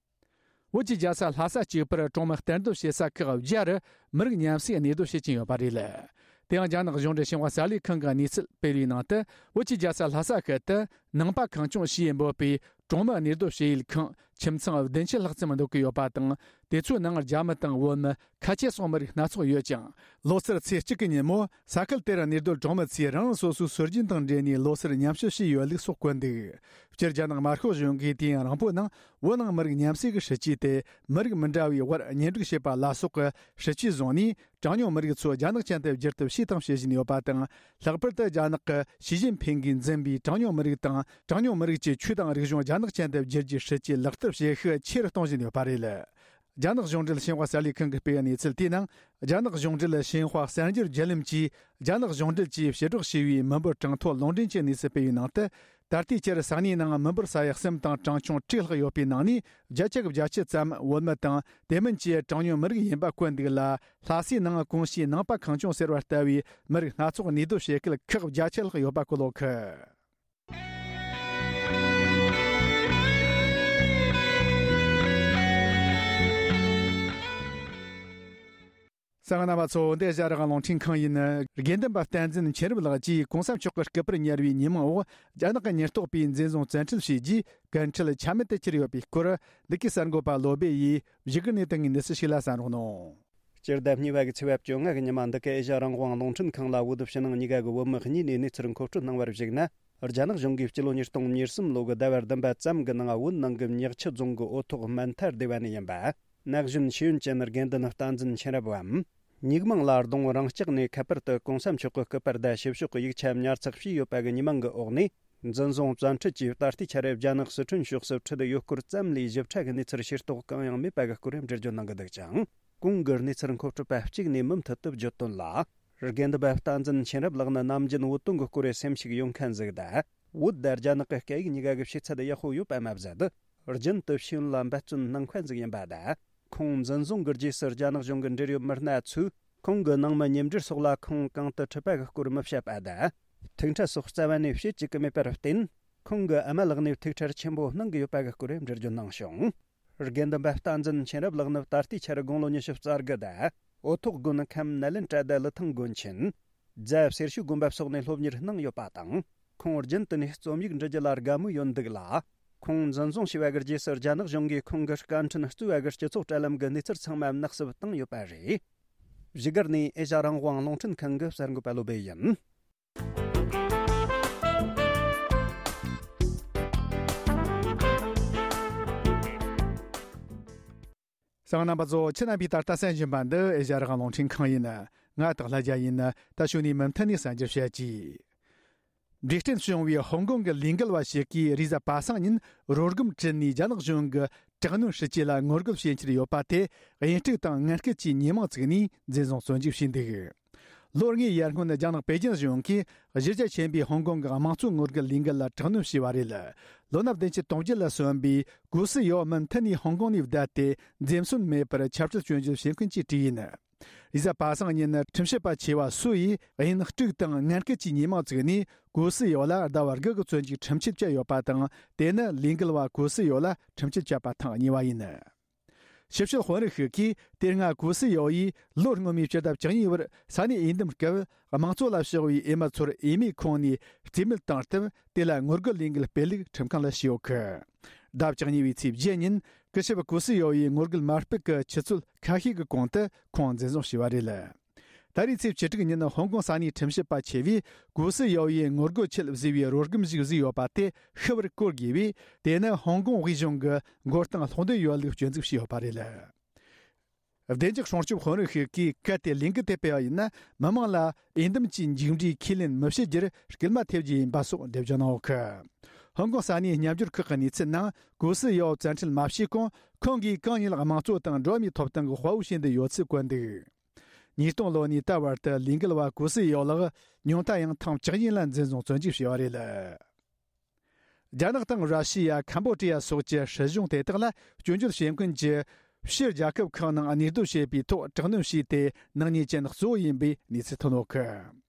བོད་ཀྱི་རྒྱལ་ས་ལྷ་ས་གཅིག་པུར་གྲོང་མི་གཏན་སྡོད་བྱེད་ས་ཁག་བརྒྱ་རུ་མི་རིགས་མཉམ་བསྲེས་གནས་སྡོད་བྱེད་ཀྱིན་ཡོད་པ་རེད། དེ་ཡང་རྒྱ་ནག་གཞུང་འབྲེལ་ཤིན་ཧྭ་གསར་ལས་ཁང་གི་གནས་ཚུལ་སྤེལ་བའི་ནང་དུ། བོད་ཀྱི་རྒྱལ་ས་ལྷ་ས་ཁུལ་དུ་ནང་པ་གངས་ལྗོངས་ཞེས་འབོད་པའི་གྲོང་མི་གནས་སྡོད་བྱེད་ཡུལ་ཁང་ཁྱིམ་ཚང་བདུན་ཅུ་ལྷག་ཙམ་འདུ་གི་ཡོད་པ་དང་། དེ་ཚོའི་ནང་རྒྱ་མི་དང་བོད་མི། ཁ་ཆེ་སོགས་མི་རིགས་སྣ་ཚོགས་ཡོད་ཅིང་། ལོ་གསར་ཚེས་གཅིག་གི་ཉིན་མོ་ས་ཁུལ་དེར་གནས་སྡོད་གྲོང་མི་ཚོས་རང་རང་སོ་སོའི་སྲོལ་རྒྱུན་དང་འབྲེལ་ནས་ལོ་གསར་མཉམ་ཞུ་བྱས་ཡོད་ལུགས་སོགས་བཀོད་འདུག། སྤྱིར་རྒྱ་ནག་དམར་ཤོག་གཞུང་གིས་དུས་ཡུན་རིང་པོའི་ནང་བོད་ནང་མི་རིགས་མཉམ་བསྲེས་ཀྱི་སྲིད་ཇུས་དེ་མི་རིགས་མི་འདྲ་བའི་དབར་གཉེན་སྒྲིག་བྱེད་པ་ལ་སོགས་ཀྱི་སྲིད་ཇུས་བཟུང་ནས། གྲངས་ཉུང་མི་རིགས་ཚོ་རྒྱ་ནག་ཅན་དུ་བསྒྱུར་ཐབས་བྱས་དང་བྱེད་བཞིན་ཡོད་པ་དང་། ལྷག་པར་དུ་རྒྱ་ནག་གི་ཞི་ཅིན་ཕིང་གིས་འཛིན་པའི་གྲངས་ཉུང་མི་རིགས་དང་། གྲངས་ཉུང་མི་རིགས་ཀྱི་ཆོས་དང་རིག་གཞུང་རྒྱ་ནག་ཅན་དུ་བསྒྱུར་རྒྱུའི་སྲིད་ཇུས་ལག་བསྟར་བྱེད་ཤུགས་ཆེ་རུ་གཏོང་བཞིན་ཡོད་པ་རེད། རྒྱ་ནག་གཞུང་འབྲེལ་ཤིན་ཧྭ་གསར་ལས་ཁང་གིས་སྤེལ་བའི་གནས་ཚུལ་དེའི་ནང་། རྒྱ་ནག་གཞུང་འབྲེལ་ཤིན་ཧྭ་གསར་འགྱུར་བརྒྱུད་ལམ་གྱིས་རྒྱ་ནག་གཞུང་འབྲེལ་གྱིས་ཕྱིར་སྒྲོག་བྱས་པའི་མི་འབོར་གྲངས་ཐོ་ལུང་འདྲེན་གྱི་གནས་ཚུལ་སྤེལ་བའི་ནང་དུ། ད་ལྟའི་ཆར་ས་གནས་ནང་མི་འབོར་ས་ཡ་གསུམ་དང་གྲངས་ཆུང་དྲུག་ལྷག་ཡོད་པའི་ནང་ནས་བརྒྱ་ཆ་བརྒྱད་ཅུ་ཙམ་བོད་མི་དང་དེ་མིན་གྱི་གྲངས་ཉུང་མི་རིགས་ཡིན་པ་བཀོད་འདུག་ལ། ལྷ་སའི་ནང་གོང་ཞུས་ནང་པ་གངས་ལྗོངས་ཟེར་བ་ལྟ་བུའི་མི་རིགས་སྣ་ཚོགས་གནས་སྡོད་བྱེད་མཁན་ཁག་བརྒྱ་ཆ་ལྷག་ཡོད་པ་གོ་ལོག་གི། གསན་མཁན་རྣམ་པ་ཚོ། འདི་ཨེ་ཤ་ཡ་རང་དབང་རླུང་འཕྲིན་ཁང་ཡིན། དགེ་འདུན་པ་བསྟན་འཛིན་མཁྱེན་རབ་ལགས་ཀྱིས་གོང་ས་མཆོག་གི་སྐུ་པར་ཉར་བའི་ཉིན་མོའི་འོག་རྒྱ་ནག་གི་ཉེན་རྟོག་པས་འཛིན་བཟུང་བཙན་ཁྲིད་བྱས་རྗེས་ཀུན་ཁྲོལ་ཆ་མེད་དུ་གྱུར་ཡོད་པའི་སྐོར། འདི་གའི་གསར་འགོད་པ་བློ་སྦེ་ཡིས་བཞུགས་སྒར་ནས་བཏང་བའི་གནས་ཚུལ་ཞིག་ལ་གསན་རོགས་གནང་། སྤྱི་ཟླ་གཉིས་པ་གི་ཚེས་པ་བཅོ་ལྔ་གི་ཉི་མ་འདི་གའི་ཨེ་ཤ་ཡ་རང་དབང་རླུང་འཕྲིན་ཁང་ལ་བོད་ཕྱི་ནང་གཉིས་ཀ་གི་བོད་མི་གཉིས་ནས་གནས་ཚུལ་མཁོ་སྤྲོད་གནང་བར་གཞིགས་ན། རྒྱ་ནག་གཞུང་གིས་སྤྱི་ལོ་ཉིས་སྟོང་ཉེར་གསུམ་ལོ་གི་ཟླ་བ་བདུན་པ་ཙམ་གྱི་ནང་བོད་ནང་གི་ཉག་ཆུ་རྫོང་གི་འོ་ཐོག་སྨན་ཐར་སྡེ་བ་ནས་ཡིན་པ། ན་གཞོན་ཤེས་ཡོན་ཅན་དགེ་འདུན་བསྟན་འཛིན་མཁྱེན་རབ་བམ། ཉིག་མང་ལ་གདོང་རང་སྐྱག་ནས་ཁ་པར་དུ་གོང་ས་མཆོག་གི་སྐུ་པར་དང་ཞིབ་ཕྱོགས་ཀྱི་ཡིག་ཆ་ཉར་ཚགས་བྱས་ཡོད་པ་གི་ཉི་མ་འགའི་འོག་ནས། འཛིན་བཟུང་བཙན་ཁྲིད་ཀྱིས་ད་ལྟའི་ཆར་རྒྱ་ནག་སི་ཁྲོན་ཕྱོགས་སུ་ཁྲིད་ཡོད་སྐོར་ཙམ་ལས་ཞིབ་ཕྲ་གི་གནས་ཚུལ་ཤེས་རྟོགས་གང་ཡང་མེད་པ་གི་སྐོར་འགྲེལ་བརྗོད་གནང་གི་འདུག་ཅིང་། གོང་གི་གནས་ཚུལ་མཁོ་སྤྲོད་པ་གཅིག་ནས་མུ་མཐུད་དུ་བརྗོད་དོན་ལ། དགེ་འདུན་པ་བསྟན་འཛིན་མཁྱེན་རབ་ལགས་ནི་ནམ་རྒྱུན་བོད་དོན་གྱི་སྐོར་སེམས་ཤུགས་ཡོད་མཁན་ཟིག་དང་། བོད་དང་རྒྱ་ནག་གི་སྐད་ཡིག་གཉིས་ཀ་གི་ཤེས་ཚད་ཡག་པོ་ཡོད་པ་མ་ཟད། རྒྱུན་དུ་ཤེས་ཡོན་ལ་འབད་བརྩོན་གནང་མཁན་ཟིག་ཡིན་པ་དང་། ཁོང་འཛིན་བཟུང་གི་རྗེས་སུ་རྒྱ་ནག་གཞུང་གི་འབྲེལ་ཡོད་མི་སྣ་ཚོས་ཁོང་གི་ནང་མི་མཉམ་འབྲེལ་སོགས་ལ་ཁོང་གང་དུ་ཁྲིད་པ་གི་སྐོར་མི་བཤད་པ་དང་། ཐུག་འཕྲད་སོགས་རྩ་བ་ནས་བྱེད་བཅུག་གི་མེད་པར་བརྟེན། ཁོང་གི་ཨ་མ་ལགས་ནས་ཐུགས་ཁྲལ་ཆེན་པོ་གནང་གི་ཡོད་པ་གི་སྐོར་འགྲེལ་བརྗོད་གནང་བྱུང་། དགེ་འདུན་པ་བསྟན་འཛིན་མཁྱེན་རབ་ལགས་ནི་ད་ལྟའི་ཆར་དགུང་ལོ་ཉི་ཤུ་རྩ་དགུ་དང་། འོ་ཐོག་དགོན་ཁམས་ནཱ་ལེནྡྲ་དང་ལི་ཐང་དགོན་ཆེན། རྫ་སེར་ཤུལ་དགོན་པ་སོགས་ནས་སློབ་གཉེར་གནང་ཡོད་པ་དང་། ཁོང་རྒྱུན་དུ་ནས་རྩོམ་ཡིག་འབྲི་རྒྱུ་ལ་དགའ་མོས་ཡོད་འདུག་ལ། ཁོང་འཛིན་བཟུང་བྱས་པ་གི་རྗེས་སུ་རྒྱ་ནག་གཞུང་གིས་ཁོང་གི་སྐད་འཕྲིན་གཙོས་པ་གི་སྤྱི་ཚོགས་དྲ་ལམ་གི་གནས་ཚུལ་ཚང་མ་ནག་བསུབ་བཏང་ཡོད་པ་རེད། བཞུགས་སྒར་ནས་ཨེ་ཤ་ཡ་རང་དབང་རླུང་འཕྲིན་ཁང་གི་གསར་འགོད་པ་བློ་སྦེ་ཡིན། གསན་མཁན་རྣམ་པ་ཚོ། ཁྱེད་རྣམ་པས་ད་ལྟ་གསན་བཞིན་པ་འདི་ཨེ་ཤ་ཡ་རང་དབང་རླུང་འཕྲིན་ཁང་ཡིན། ང་སྟག་ལྷ་རྒྱལ་ཡིན། ད་ཞུ་ནས་མུ་མཐུད་ནས་གསན་རྒྱུ་བྱེད་ཀྱི། འབྲས་སྐྲན་བྱུང་བའི་ཧོང་ཀོང་གི་ལས་འགུལ་བ་ཞིག་གིས་རེས་གཟའ་པ་སངས་ཉིན་རོ་སྒམ་བྲིས་ནས་རྒྱ་ནག་གཞུང་གི་དྲག་གནོན་སྲིད་ཇུས་ལ་ངོ་རྒོལ་བྱེད་འཆར་ཡོད་པ་དེ། དབྱིན་དཀྲུག་དང་ངན་སྐུལ་གྱི་ཉེས་མིང་བཙུགས་ནས་འཛིན་བཟུང་བཙོན་འཇུག་བྱས་འདུག། ལོ་ལྔའི་ཡར་སྔོན་རྒྱ་ནག་པེ་ཅིན་གཞུང་གིས་གཞི་རྒྱ་ཆེན་པོའི་ཧོང་ཀོང་གི་དམངས་གཙོའི་ངོ་རྒོལ་ལས་འགུལ་ལ་དྲག་གནོན་བྱས་པ་རེད། ལོ་ན་བདུན་ཅུ་དོན་བརྒྱད་ལ་སོན་པའི་གོ་སི་ཡོ་མུ་མཐུད་ནས་ཧོང་ཀོང་ནས་བསྡད་དེ། འཛེམ་ཟོན་མེད་པར་ཆབ་སྲིད་སྐྱོན་བརྗོད་བྱེད་མཁན་གྱི་གྲས་ཡིན། རེས་གཟའ་པ་སངས་ཉིན་ཁྲིམས་ཞིབ་པ་ཆེ་བ་སུ་ཡིས་དབྱིན་དཀྲུག་དང་ངན་སྐུལ་གྱི་ཉེས་མིང་བཙུགས་ནས། གོ་སི་ཡོ་ལ་ཟླ་བ་དགུ་གི་བཙོན་འཇུག་ཁྲིམས་ཆད་བཅད་ཡོད་པ་དང་། དེ་ནི་ལས་འགུལ་བ་གོ་སི་ཡོ་ལ་ཁྲིམས་ཆད་བཅད་པ་ཐེངས་གཉིས་པ་ཡིན། ཕྱི་བཤོལ་དཔོན་རིགས་ཤིག་གིས་དེ་སྔ་གུ་སི་ཡའོ་ཡིས་ལོ་སྔོན་མའི་ཕྱི་ཟླ་བཅུ་གཉིས་པར་ས་གནས་འོས་འདེམས་སྐབས་དམངས་གཙོ་ལ་ཕྱོགས་པའི་འོས་མི་ཚོར་འོས་མིའི་ཁོངས་ནས་རྩིས་མེད་བཏང་སྟབས། དེ་ལ་ངོ་རྒོལ་ལས་འགུལ་སྤེལ་ལུགས་ཁྲིམས་ཁང་ལ་ཞུས་ཡོད་གི། ཟླ་བཅུ་གཉིས་པའི་ཚེས་བརྒྱད་ཉིན་སྐུ་ཞབས་གུ་སི་ཡའོ་ཡིས་ངོ་རྒོལ་མ་སྤེལ་གི་ཆུ་ཚོད་ཁ་ཤས་ཀྱི་གོང་དུ་ཁོང་འཛིན་བཟུང་བྱས་པ་རེད། ད་རེས་ཚེས་བཅུ་དྲུག་ཉིན་ཧོང་ཀོང་ས་གནས་ཁྲིམས་ཞིབ་པ་ཆེ་བས་གུ་སི་ཡའོ་ཡིས་ངོ་རྒོལ་ཆེད་བཟོས་པའི་རོལ་སྒམ་ཞིག་བཟོས་ཡོད་པ་དེ་ཤི་བར་གོ་དགོས་པས། དེ་ནི་ཧོང་ཀོང་དབུས་གཞུང་གི་མགོ་རྟིང་སློག་འདོད་ཡོད་ལུགས་སྐྱོན་འཛུགས་བྱས་ཡོད་པ་རེད། བདེ་འཇགས་སྲུང་སྐྱོབ་དཔོན་རིགས་ཤིག་གིས་གལ་ཏེ་ལས་འགུལ་དེ་སྤེལ་བ་ཡིན་ན། མི་མང་ལ་འོས་འདེམས་ཀྱི་མཇུག་འབྲས་ཁས་ལེན་མི་བྱེད་རྒྱུར་སྐུལ་མ་ཐེབས་རྒྱུ་ཡིན་པ་སོགས་འགྲེལ་བརྗོད་གནང་ཡོད་གི། ཧོང་ཀོང་ས་གནས་མཉམ་སྦྱོར་ཁག་གི་གནས་ཚུལ་ནང་གུ་སི་ཡའོ་བཙན་ཁྲིད་མ་བྱས་གོང་ཁོང་གིས་གང་ཉིད་དམངས་གཙོ་དང་འགྲོ་བ་མིའི་ཐོབ་ཐང་གི་དཔའ་བོ་བྱེད་འདོད་ཡོད་ཚུལ་བཀོད་འདུག། ཉིས་སྟོང་ལོ་ནས་ད་བར་དུ་ལས་འགུལ་བ་གུ་སི་ཡའོ་ལགས་ཉུང་མཐའ་ཡང་ཐེངས་བཅུ་གཉིས་ལ་འཛིན་བཟུང་བཙོན་འཇུག་བྱས་པ་རེད། རྒྱ་ནག་དང་ར་ཤི་ཡ། ཁམ་བོ་ཌི་ཡ་སོགས་ཀྱི་སྲིད་གཞུང་དེ་དག་ལ་སྐྱོན་བརྗོད་བྱེད་མཁན་གྱི་ཕྱིའི་རྒྱལ་ཁབ་ཁག་ནང་གནས་སྡོད་བྱེད་པའི་ཐོག་དྲག་གནོན་བྱས་ཏེ། ནག་ཉེས་ཅན་གཙོ་བོ་ཡིན་པའི་གནས་ཚུལ་ཐོན་ཡོད་གི།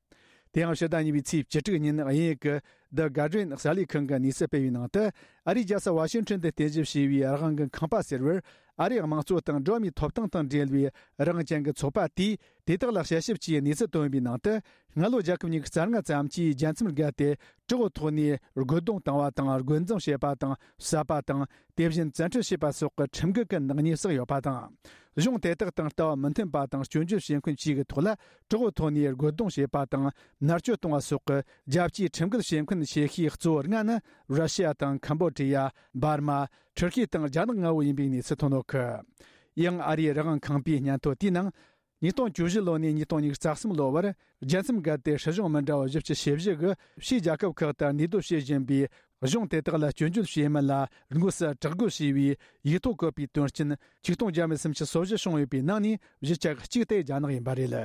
དེ་ཡང་ཕྱི་ཟླ་གཉིས་པའི་ཚེས་བཅུ་དྲུག་ཉིན་དབྱིན་ཡིག་གི་The Guardian གསར་ལས་ཁང་གིས་གནས་ཚུལ་སྤེལ་བའི་ནང་དུ། ཨ་རིའི་རྒྱལ་ས་ཝ་ཤིང་ཊོན་དུ་རྟེན་གཞི་བྱས་པའི་རང་དབང་གི་ཁང་པ་ཟེར་བར། ཨ་རིའི་དམངས་གཙོ་དང་འགྲོ་བ་མིའི་ཐོབ་ཐང་དང་འབྲེལ་བའི་རང་དབང་ཅན་གྱི་ཚོགས་པ་དེས་དེ་དག་ལ་དཔྱད་ཞིབ་ཀྱིས་གནས་ཚུལ་བཏོན་པའི་ནང་དུ། སྔ་ལོ་རྒྱལ་ཁབ་ཉི་ཤུ་རྩ་ལྔ་ཙམ་གྱིས་རྒྱལ་མཚམས་བརྒལ་ཏེ་དྲག་པོའི་ཐོག་ནས་རྒོལ་རྡུང་བཏང་བ་དང་། རྒོལ་འཛིང་བྱས་པ་དང་། བསད་པ་དང་། དེ་བཞིན་བཙན་ཁྲིད་བྱས་པ་སོགས་ཀྱི་ཁྲིམས་འགལ་གྱི་ནག་ཉེས་བསགས་ཡོད་པ་དང་། གཞུང་དེ་དག་དང་ལྟ་བ་མི་མཐུན་པ་དང་སྐྱོན་བརྗོད་བྱེད་མཁན་བཅས་ཀྱི་ཐོག་ལ་དྲག་པོའི་ཐོག་ནས་རྒོལ་རྡུང་བྱས་པ་དང་། མནར་གཅོད་གཏོང་བ་སོགས་ཀྱི་རྒྱལ་སྤྱིའི་ཁྲིམས་འགལ་བྱེད་མཁན་ཆེ་ཤོས་གཙོ་བོ་ལྔ་ནི་ར་ཤི་ཡ་དང་། ཁམ་བོ་ཌི་ཡ། འབར་མ། ཐུར་ཁེ་དང་རྒྱ་ནག་ལྔ་བོ་ཡིན་པའི་གནས་ཚུལ་ཐོན་ཡོད་གི། ཡང་ཨ་རིའི་རང་དབང་ཁང་པའི་སྙན་ཐོ་དེའི་ནང་། ཉིས་སྟོང་བཅུ་བཞི་ལོ་ནས་ཉིས་སྟོང་ཉི་ཤུ་རྩ་གསུམ་ལོ་བར། རྒྱལ་མཚམས་བརྒལ་ཏེ་སྲིད་གཞུང་མི་འདྲ་བ་བཞི་བཅུ་ཞེ་བཞི་གིས་ཕྱིའི་རྒྱལ་ཁབ་ཁག་ཏུ་གནས་སྡོད་བྱེད་བཞིན་པའི་གཞུང་དེ་དག་ལ་སྐྱོན་བརྗོད་བྱེད་མིན་ལ་དངོས་སུ་དྲག་རྒོལ་བྱས་པའི་ཡིག་ཐོག་བཀོད་པའི་དོན་རྐྱེན་ཆིག་སྟོང་བརྒྱ་མེད་སུམ་ཅུ་སོ་བཞི་བྱུང་ཡོད་པའི་ནང་ནས་བཞི་ཆ་གཅིག་དེ་རྒྱ་ནག་ཡིན་པ་རེད།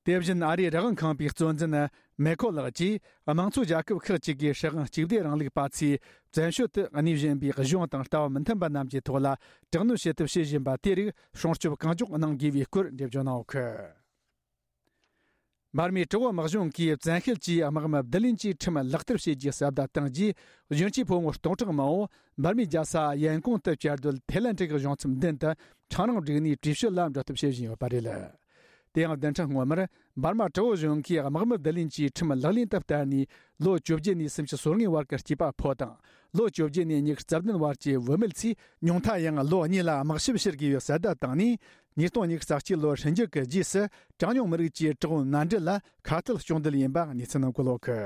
དེ་བཞིན་ཨ་རིའི་རང་དབང་ཁང་པའི་གཙོ་འཛིན་མེ་ཁོ་ལགས་ཀྱིས། དམངས་གཙོ་རྒྱལ་ཁབ་ཁག་ཅིག་གིས་སྲིད་དབང་གཅིག་སྡུད་རིང་ལུགས་པ་ཚོས་བཙན་བྱོལ་དུ་གནས་བཞིན་པའི་གཞུང་དང་ལྟ་བ་མི་མཐུན་པ་རྣམས་ཀྱི་ཐོག་ལ་དྲག་གནོན་བྱེད་ཐབས་བྱེད་བཞིན་པ་དེ་རིགས་སྲུང་སྐྱོབ་གང་མགྱོགས་གནང་དགོས་པའི་སྐོར་འགྲེལ་བརྗོད་གནང་ཡོད་གི། འབར་མའི་དྲག་པོ་དམག་གཞུང་གིས་བཙན་ཤེད་ཀྱིས་དམག་མི་བསྡུ་ལེན་གྱི་ཁྲིམས་ལག་བསྟར་བྱེད་རྒྱུའི་ཟབ་བརྡ་བཏང་རྗེས། གཞོན་སྐྱེས་ཕོ་མོ་སྟོང་ཕྲག་མང་པོ་འབར་མའི་རྒྱལ་ས་ཡན་ཀོང་དུ་བཅའ་སྡོད་ཐའི་ལན་ཀྲིག་གཞུང་ཚབ་མདུན་དུ་ཁྲང་རིང་བསྒྲིགས་ནས་བྲོས་བྱོལ་ལ་འགྲོ་ཐབས་བྱེད་བཞིན་ཡོད་པ་རེད། དེ་ཡང་བདུན་ཕྲག་སྔོན་མར་འབར་མ་དྲག་པོ་གཞུང་གིས་དམག་མི་བསྡུ་ལེན་གྱི་ཁྲིམས་ལག་ལེན་དུ་བསྟར་ནས་ལོ་བཅོ་བརྒྱད་ནས་སུམ་ཅུ་སོ་ལྔའི་བར་གྱི་སྐྱེས་པ་ཕོ་དང་། ལོ་བཅོ་བརྒྱད་ནས་ཉི་ཤུ་རྩ་བདུན་བར་གྱི་བུད་མེད་ཚོས་ཉུང་མཐའ་ཡང་ལོ་གཉིས་ལ་དམག་ཞབས་ཕྱིར་དགོས་པའི་གསལ་བརྡ་བཏང་ནས། ཉིས་སྟོང་ཉི་ཤུ་རྩ་གཅིག་ལོར་ཧྲིན་ཇི་གི་རྗེས་སུ་གྲངས་ཉུང་མི་རིགས་ཀྱི་དྲག་པོའི་མནའ་འབྲེལ་ལ་ཁ་གཏད་གཅོག་འདོད་ཡིན་པ་གནས་ཚུལ་ནང་འཁོད་ཡོད་གི།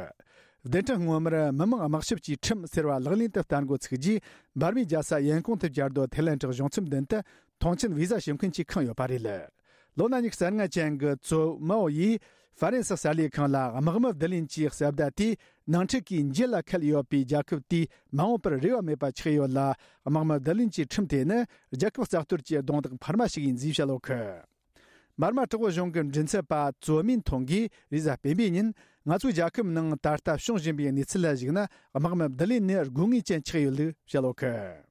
བདུན་ཕྲག་སྔོན་མར་མི་དམངས་དམག་ཞབས་ཀྱི་ཁྲིམས་ཟེར་བ་ལག་ལེན་དུ་བསྟར་འགོ་ཚུགས་རྗེས། འབར་མའི་རྒྱལ་ས་ཡན་ཀོང་དུ་བཅའ་སྡོད་ཐའི་ལན་ཀྲིག་གཞུང་ཚབ་མདུན་དུ་མཐོང་མཆན་བི་ཟ་ཞུ་མཁན་གྱིས་ཁེངས་ཡོད་པ་རེད། ལོ་ན་ཉི་ཤུ་རྩ་ལྔ་ཅན་གྱི་ཙོ་མའོ་ཡིས་ཧྥ་རན་སི་གསར་ལས་ཁང་ལ། དམག་མི་བསྡུ་ལེན་གྱི་གསལ་བརྡ་དེས་ནང་འཁྲུག་གི་འགྱེད་ལ་ཁད་ཡོད་པའི་རྒྱལ་ཁབ་དེས་མ་འོངས་པར་རེ་བ་མེད་པ་ཆགས་ཡོད་ལ། དམག་མི་བསྡུ་ལེན་གྱི་ཁྲིམས་དེ་ནི་རྒྱལ་ཁབ་རྩ་གཏོར་གྱི་རྡུང་རྡེག་འཕར་མ་ཞིག་ཡིན་ཞེས་བཤད་ཡོད་གི། འབར་མ་དྲག་པོ་གཞུང་གི་མགྲིན་ཚབ་པ་ཙོ་མིན་ཐོང་གིས་རེས་གཟའ་སྤེན་པའི་ཉིན། ང་ཚོའི་རྒྱལ་ཁབ་ནང་ད་ལྟ་བྱུང་བཞིན་པའི་གནས་ཚུལ་ལ་གཞིགས་ན། དམག་མི་བསྡུ་ལེན་ནི་དགོས་ངེས་ཅན་ཆགས་ཡོད་ལུགས་བཤད་ཡོད་གི།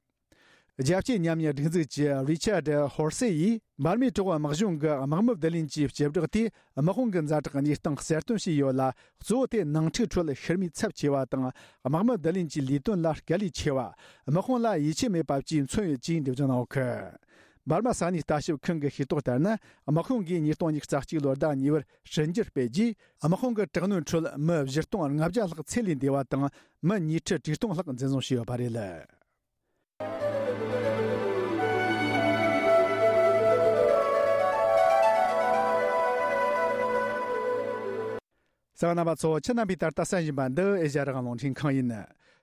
རྒྱལ་སྤྱིའི་ཉམས་ཉེས་སྒྲིག་འཛུགས་ཀྱི་རི་ཆར་ཌི་ཧོར་སེ་ཡིས། འབར་མའི་དྲག་པོ་དམག་གཞུང་གིས་དམག་མི་བསྡུ་ལེན་གྱི་བྱེ་བྲག་དེས་དམག་དཔུང་གི་ཛ་དྲག་གནས་སྟངས་གསལ་སྟོན་བྱས་ཡོད་ལ། གཙོ་བོ་དེ་ནང་འཁྲུག་ཁྲོད་ཤི་རྨས་ཚབས་ཆེ་བ་དང་། དམག་མི་བསྡུ་ལེན་གྱི་ལས་དོན་ལ་དཀའ་ལས་ཆེ་བ། དམག་དཔུང་ལ་ཡིད་ཆེས་མེད་པ་བཅས་མཚོན་ཡོད་ཅེས་འགྲེལ་བརྗོད་གནང་ཡོད་གི། འབར་མ་ས་གནས་ལྟ་ཞིབ་ཁང་གི་ཤེས་རྟོགས་ལྟར་ན། དམག་དཔུང་གིས་ཉིས་སྟོང་ཉི་ཤུ་རྩ་གཅིག་ལོར་ཟླ་གཉིས་པར་བྱས་འགྱུར་སྤེལ་རྗེས། དམག་དཔུང་གི་དྲག་གནོན་ཁྲོད་མི་བཞི་སྟོང་ལྔ་བརྒྱ་ལྷག་ཚེ་ལས་འདས་པ་དང་། མི་ཉིས་ཁྲི་དྲུག་སྟོང་ལྷག་འཛིན་བཟུང་བྱས་ཡོད་པ་རེད། གསན་པ་རྣམ་པ་ཚོ། ཁྱེད་རྣམ་པས་ད་ལྟ་གསན་བཞིན་པ་འདི་ཨེ་ཤ་ཡ་རང་དབང་རླུང་འཕྲིན་ཁང་ཡིན།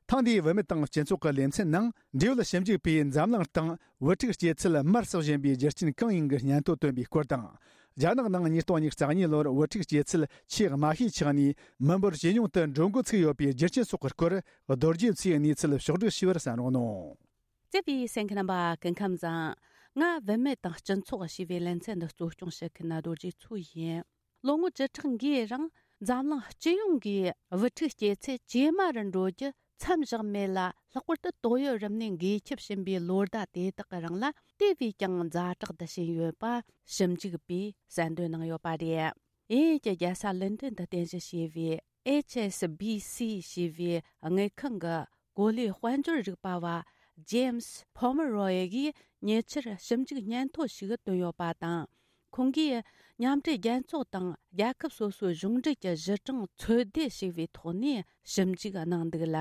ཐེངས་འདིའི་བུད་མེད་དང་སྤྱི་ཚོགས་ཀྱི་ལེ་ཚན་ནང་། འབྲེལ་ཡོད་ཞིབ་འཇུག་པས་འཛམ་གླིང་སྟེང་བུ་ཕྲུག་སྐྱེ་ཚུལ་མར་ཟག་བཞིན་པའི་རྒྱུ་རྐྱེན་གང་ཡིན་གྱི་སྙན་ཐོ་བཏོན་པའི་སྐོར་དང་། རྒྱ་ནག་ནང་ཉིས་སྟོང་ཉི་ཤུ་རྩ་གཉིས་ལོར་བུ་ཕྲུག་སྐྱེ་ཚུལ་ཆེས་དམའ་ཤོས་ཆགས་ནས་མི་འབོར་ཇེ་ཉུང་དུ་འགྲོ་འགོ་ཚུགས་ཡོད་པའི་རྒྱུ་རྐྱེན་སོགས་ཀྱི་སྐོར། རྡོ་རྗེ་མཚོས་གནས་ཚུལ་ཕྱོགས་བསྒྲིགས་ཞུས་པར་གསན་རོགས་གནང་། བརྩེ་བའི་གསན་མཁན་རྣམ་པ། སྐུ་ཁམས་བཟང་། ང་བུད་མེད་དང་སྤྱི་ཚོགས་ཞེས་པའི་ལེ་ཚན་འདི་གཙོ་སྐྱོང་བྱེད་མཁན་རྡོ་རྗེ་མཚོ་ཡིན། ལོ་ངོ་བཅུ་ཕྲག་འགའི་རིང་འཛམ་གླིང་སྤྱི་ཡོངས་ཀྱི་བུ་ཕྲུག་སྐྱེ་ཚད་ཇེ་དམའ་རུ་འགྲོ་རྒྱུ་མཚམས་བཞག་མེད་ལ། ལྷག་པར་དུ་ཏོག་དབྱིབས་རིམས་ནད་འགོས་ཁྱབ་བཞིན་པའི་ལོ་ཟླ་དེ་དག་གི་རིང་ལ། དེ་བས་ཀྱང་ཛ་དྲག་ཏུ་ཕྱིན་ཡོད་པ་ཞིབ་འཇུག་པས་གསལ་འདོན་གནང་ཡོད་པ་རེད། དབྱིན་ཡུལ་གྱི་རྒྱལ་ས་ལོན་ཏོན་དུ་རྟེན་གཞི་བྱས་པའི་ཨེཆ་ཨེས་བྷི་སི་ཞེས་པའི་དངུལ་ཁང་གི་གོ་ལའི་དཔལ་འབྱོར་རིག་པ་བ་ཇེམ་སི་ཕོ་མི་རོ་ཡི་གིས། ཉེ་ཆར་ཞིབ་འཇུག་སྙན་ཐོ་ཞིག་བཏོན་ཡོད་པ་དང་། ཁོང་གིས་མཉམ་འབྲེལ་རྒྱལ་ཚོགས་དང་རྒྱལ་ཁབ་སོ་སོའི་གཞུང་འབྲེལ་གྱི་གཞི་གྲངས་ཚོད་ལྟ་བྱས་པའི་ཐོག་ནས་ཞིབ་འཇུག་གནང་འདུག་ལ།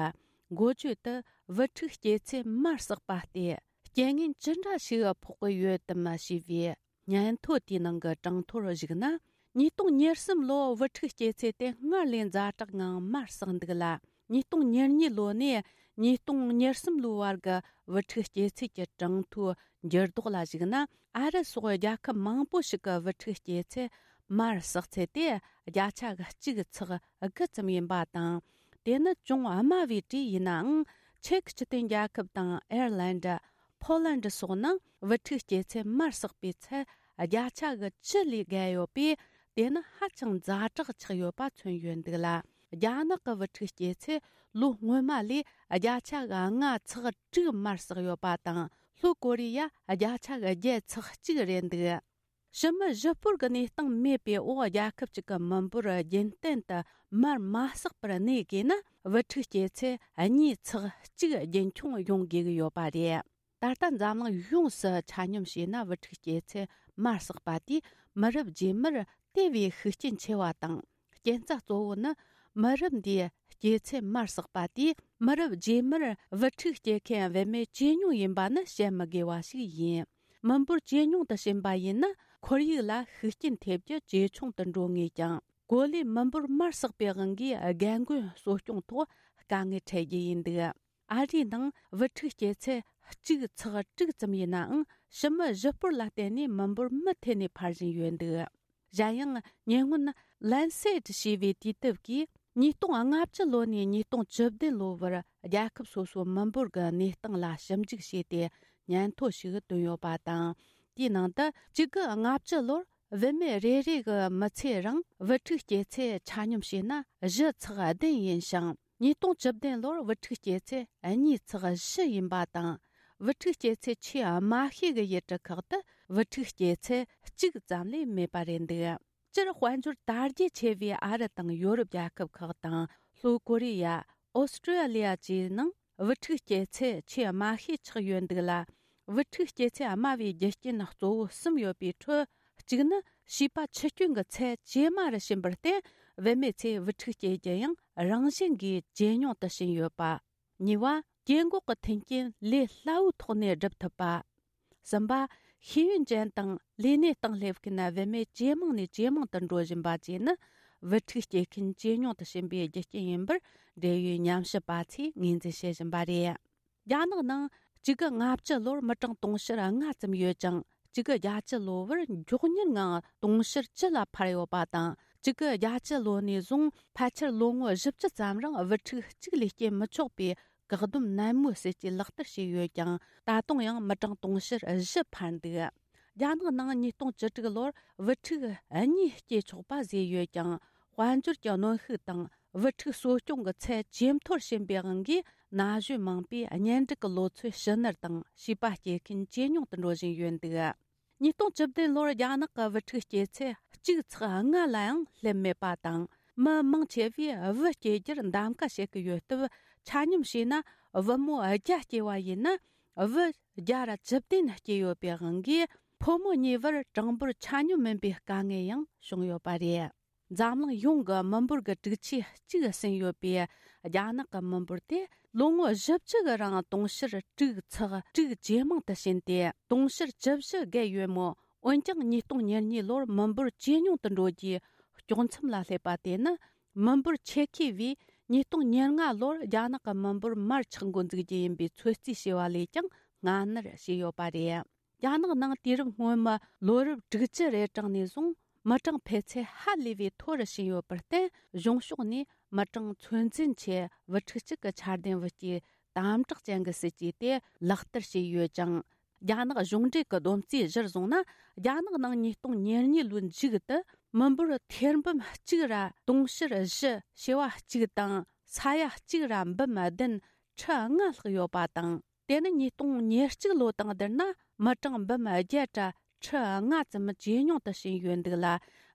འགོ་བརྗོད་དུ་བུ་ཕྲུག་སྐྱེས་ཚེ་མར་བསྲེགས་པ་སྟེ་རྐྱེན་ངན་ཅི་འདྲ་ཞིག་ཕོག་གི་ཡོད་དམ་ཞེས་པའི་སྙན་ཐོ་དེའི་ནང་གི་གྲངས་ཐོར་གཞིགས་ན། ཉིས་སྟོང་ཉེར་གསུམ་ལོ་བུ་ཕྲུག་སྐྱེས་ཚེས་དེ་སྔར་ལས་ཛ་དྲག་ངང་མར་བསྲེགས་འདུག་ལ། ཉིས་སྟོང་ཉེར་གཉིས་ལོ་ནས་ཉིས་སྟོང་ཉེར་གསུམ་ལོའི་བར་གྱི་བུ་ཕྲུག་སྐྱེས་ཚེས་ཀྱི་གྲངས་ཐོའི་འགྱུར་ལྡོག་ལ་གཞིགས་ན། ཨ་རི་སོགས་རྒྱལ་ཁབ་མང་པོ་ཞིག་གི་བུ་ཕྲུག་སྐྱེས་ཚེས་མར་བསྲེགས་ཚད་དེ་བརྒྱ་ཆ་གཅིག་ཚེག་དགུ་ཙམ་ཡིན་པ་དང་། དེ་ནི་ཅུང་དམའ་བའི་གྲས་ཡིན་ནའང་། ཅེཀ་སྤྱི་མཐུན་རྒྱལ་ཁབ་དང་ཨེར་ལན་ཌ། ཕོ་ལན་ཌ་སོགས་ནང་བུ་ཕྲུག་སྐྱེས་ཚེས་མར་བསྲེགས་པའི་ཚད་བརྒྱ་ཆ་གི་བཅུ་ལས་བརྒལ་ཡོད་པས། དེ་ནི་ཧ་ཅང་ཛ་དྲག་ཆགས་ཡོད་པ་མཚོན་ཡོད་འདུག་ལ། རྒྱ་ནག་གི་བུ་ཕྲུག་སྐྱེས་ཚེས་ལོ་སྔོན་མ་ལས་བརྒྱ་ཆ་གི་ལྔ་ཚེག་དྲུག་མར་བསྲེགས་ཡོད་པ་དང་། ལྷོ་ཀོ་རི་ཡ་བརྒྱ་ཆ་གི་བརྒྱད་ཚེག་གཅིག་རེད་འདུག། ཕྱི་མི་གཞིས་སྤོར་གྱི་གནས་སྟངས་མེད་པའི་འོག་རྒྱལ་ཁབ་ཅིག་གི་མི་འབོར་རྒྱུན་གཏན་དུ་མར་མ་བསྲེགས་པར་གནས་དགོས་ན། བུ་ཕྲུག་སྐྱེས་ཚེས་གཉིས་ཚེག་གཅིག་རྒྱུན་འཁྱོངས་ཡོང་དགོས་ཀྱི་ཡོད་པ་རེད། ད་ལྟ་འཛམ་གླིང་ཡོངས་སུ་ཆ་སྙོམས་བྱས་ན། བུ་ཕྲུག་སྐྱེས་ཚེས་མར་བསྲེགས་པ་དེས་མི་རབས་རྗེས་མར་དེ་བས་ཤུགས་རྐྱེན་ཆེ་བ་དང་། རྐྱེན་རྩ་གཙོ་བོ་ནི། མི་རབས་འདིའི་སྐྱེས་ཚེས་མར་བསྲེགས་པ་དེས་མི་རབས་རྗེས་མར་བུ་ཕྲུག་སྐྱེ་མཁན་བུད་མེད་ཇེ་ཉུང་ཡིན་པ་ནི་བཤད་མི་དགོས་པ་ཞིག་ཡིན། མི་འབོར་ཇེ་ཉུང་དུ་ཕྱིན་པ་ཡིན་ན། ཁོར་ཡུག་ལ་ཤུགས་རྐྱེན་ཐེབས་རྒྱུ་ཇེ་ཆུང་དུ་འགྲོ་ངེས་ཀྱང་། གོ་ལའི་མི་འབོར་མར་བསྲེགས་པའི་དབང་གིས་རྒན་རྒོན་གསོ་སྐྱོང་ཐོག་དཀའ་ངལ་འཕྲད་རྒྱུ་ཡིན་འདུག། ཨ་རིའི་ནང་བུ་ཕྲུག་སྐྱེས་ཚེས་གཅིག་ཚེག་དྲུག་ཙམ་ཡིན་ནའང་། ཕྱི་མི་གཞིས་སྤོར་ལ་བརྟེན་ནས་མི་འབོར་མུ་མཐུད་ནས་འཕར་བཞིན་ཡོད་འདུག། གཞན་ཡང་། ཉེ་སྔོན་Lancet ཞེས་པའི་དུས་དེབ་ཀྱིས་ཉིས་སྟོང་ལྔ་བཅུ་ལོ་ནས་ཉིས་སྟོང་བཅུ་བདུན་ལོ་བར་རྒྱལ་ཁབ་སོ་སོའི་མི་འབོར་གྱི་གནས་སྟངས་ལ་ཞིབ་འཇུག་བྱས་ཏེ། སྙན་ཐོ་ཞིག་བཏོན་ཡོད་པ་དང་། དེའི་ནང་དུ་གཅིག་དགུ་ལྔ་བཅུ་ལོར་བུད་མེད་རེ་རེ་གི་མི་ཚེ་རིང་བུ་ཕྲུག་སྐྱེས་ཚེས་ཆ་སྙོམས་བྱས་ན་བཞི་ཚེག་བདུན་ཡིན་ཞིང་། ཉིས་སྟོང་བཅུ་བདུན་ལོར་བུ་ཕྲུག་སྐྱེས་ཚེས་གཉིས་ཚེག་བཞི་ཡིན་པ་དང་། བུ་ཕྲུག་སྐྱེས་ཚེས་ཆེས་དམའ་ཤོས་ཀྱི་ཡུལ་གྲུ་ཁག་ཏུ་བུ་ཕྲུག་སྐྱེས་ཚེས་གཅིག་ཙམ་ལས་མེད་པ་རེད་འདུག། སྤྱིར་དཔལ་འབྱོར་དར་རྒྱས་ཆེ་བའི་ཨ་རི་དང་ཡོ་རོབ་རྒྱལ་ཁབ་ཁག་དང་། ལྷོ་ཀོ་རི་ཡ། ཨོ་སི་ཀྲི་ཡ་ལི་ཡ་བཅས་ནང་བུ་ཕྲུག་སྐྱེས་ཚེས་ཆེས་དམའ་ཤོས་ཆགས་ཡོད་འདུག་ལ། བུ་ཕྲུག་སྐྱེས་ཚེས་དམའ་བའི་རྒྱུ་རྐྱེན་གཙོ་བོ་གསུམ་ཡོད་པའི་ཁྲོད། གཅིག་ནི་བྱིས་པ་ཆུ་སྐྱོན་གྱི་ཚད་ཇེ་དམའ་རུ་ཕྱིན་པར་བརྟེན། བུད་མེད་ཚོས་བུ་ཕྲུག་སྐྱེ་རྒྱུ་ཡང་རང་བཞིན་གྱིས་ཇེ་ཉུང་དུ་ཕྱིན་ཡོད་པ། གཉིས་པ། སྐྱེ་འགོག་གི་མཐུན་རྐྱེན་ལས་སླ་བོའི་ཐོག་ནས་སྒྲུབ་ཐུབ་པ། གསུམ་པ། ཤེས་ཡོན་ཅན་དང་ལས་གནས་སྟེང་སླེབས་མཁན་བུད་མེད་ཇེ་མང་ནས་ཇེ་མང་དུ་འགྲོ་བཞིན་པ་བཅས་ནི། བུ་ཕྲུག་སྐྱེ་མཁན་ཇེ་ཉུང་དུ་ཕྱིན་པའི་རྒྱུ་རྐྱེན་ཡིན་པར། འབྲེལ་ཡོད་ཉམས་ཞིབ་པ་ཚོས་ངོས་འཛིན་བྱེད་བཞིན་པ་རེད། རྒྱ་ནག་ནང་གཅིག་དགུ་ལྔ་བཅུ་ལོར་མི་གྲངས་དུང་ཕྱུར་ལྔ་ཙམ་ཡོད་ཅིང་། གཅིག་དགུ་བརྒྱད་ཅུ་ལོ་བར་མགྱོགས་མྱུར་ངང་དུང་ཕྱུར་བཅུ་ལ་འཕར་ཡོད་པ་དང་། གཅིག་དགུ་བརྒྱད་ཅུ་ལོ་ནས་བཟུང་ཕལ་ཆེར་ལོ་ངོ་བཞི་བཅུ་ཙམ་རིང་བུ་ཕྲུག་གཅིག་ལས་སྐྱེ་མི་ཆོག་པའི་བཀག་སྡོམ་ནན་མོའི་སྲིད་ཇུས་ལག་བསྟར་བྱས་ཡོད་ཀྱང་། ད་དུང་ཡང་མི་གྲངས་དུང་ཕྱུར་བཞི་འཕར་འདུག། རྒྱ་ནག་ནང་ཉིས་སྟོང་བཅུ་དྲུག་ལོར་བུ་ཕྲུག་གཉིས་སྐྱེ་ཆོག་པ་བཟོས་ཡོད་ཀྱང་། དཔལ་འབྱོར་གྱི་གནོན་ཤུགས་དང་། བུ་ཕྲུག་གསོ་སྐྱོང་གི་ཚད་ཇེ་མཐོར་ཕྱིན་པའི་དབང་གིས། ན་གཞོན་མང་པོས་གཉེན་སྒྲིག་གི་ལོ་ཚོད་ཕྱི་ནར་དང་། བྱིས་པ་སྐྱེ་མཁན་ཇེ་ཉུང་དུ་འགྲོ་བཞིན་ཡོད་འདུག། ཉིས་སྟོང་བཅུ་བདུན་ལོར་རྒྱ་ནག་གི་བུ་ཕྲུག་སྐྱེ་ཚེས་གཅིག་ཚེག་ལྔ་ལ་ཡང་སླེབས་མེད་པ་དང་། མི་མང་ཆེ་བས་བུ་སྐྱེ་རྒྱུར་གདམ་ག་བྱེད་ཀྱི་ཡོད་སྟབས། ཆ་སྙོམས་བྱས་ན། བུ་མོ་བརྒྱ་སྐྱེ་བ་ཡིན་ན། བུ་བརྒྱ་ར་བཅུ་བདུན་སྐྱེ་ཡོད་པའི་དབང་གིས། ཕོ་མོ་གཉིས་བར་གྲངས་འབོར་ཆ་སྙོམས་མིན་པའི་དཀའ་ངལ་ཡང་བྱུང་ཡོད་པ་རེད། འཛམ་གླིང་ཡོངས་ཀྱི་མི་འབོར་གྱི་དྲུག་ཆའི་གཅིག་ཟིན་ཡོད་པའི་རྒྱ་ནག་གི་མི་འབོར་དེ། ལོ་ངོ་བཞི་བཅུ་གི་རིང་དུང་ཕྱུར་དྲུག་ཚེག་དྲུག་ཇེ་མང་དུ་ཕྱིན་ཏེ། དུང་ཕྱུར་བཅུ་བཞི་བརྒལ་ཡོད་མོད། འོན་ཀྱང་། ཉིས་སྟོང་ཉེར་གཉིས་ལོར་མི་འབོར་ཇེ་ཉུང་དུ་འགྲོ་རྒྱུའི་དཀྱོག་མཚམས་ལ་སླེབས་པ་དེ་ནི། མི་འབོར་ཆེ་ཤོས་བས་ཉིས་སྟོང་ཉེར་ལྔ་ལོར་རྒྱ་ནག་གི་མི་འབོར་མར་ཆག་འགོ་འཛུགས་རྒྱུ་ཡིན་པའི་ཚོད་རྩིས་བྱས་པ་ལས་ཀྱང་སྔ་ནར་བྱས་ཡོད་པ་རེད། རྒྱ་ནག་ནང་དུས་རབས་སྔོན་མའི་ལོ་རབས་དྲུག་ཅུ་རེ་གྲངས་ནས་བཟུང་མི་གྲངས་འཕེལ་ཚད་ཧ་ལས་པའི་མཐོ་རུ་ཕྱིན་ཡོད་པར་བརྟེན། གཞུང་ཕྱོགས་ནས་མི་གྲངས་ཚོད་འཛིན་ཆེད་བུ་ཕྲུག་གཅིག་གི་ཆ་ལྡན་བུ་སྐྱེས་དམ་དྲག་ཅན་གྱི་སྲིད་ཇུས་དེ་ལག་བསྟར་བྱས་ཡོད་ཅིང་། རྒྱ་ནག་གཞུང་འབྲེལ་གྱི་བསྡོམས་རྩིས་གཞིར་བཟུང་ན། རྒྱ་ནག་ནང་ཉིས་སྟོང་ཉེར་གཉིས་ལོའི་མཇུག་ཏུ་མི་འབོར་ཐེར་འབུམ་གཅིག་ར་དུང་ཕྱུར་བཞི་བྱེ་བ་གཅིག་དང་ས་ཡ་གཅིག་ར་འབུམ་བདུན་ཁྲི་ལྔ་ལྷག་ཡོད་པ་དང་། དེ་ནི་ཉིས་སྟོང་ཉེར་གཅིག་ལོ་དང་བསྡུར་ན། མི་གྲངས་འབུམ་བརྒྱད་ར་ཁྲི་ལྔ་ཙམ་ཇེ་ཉུང་དུ་ཕྱིན་ཡོད་འདུག་ལ།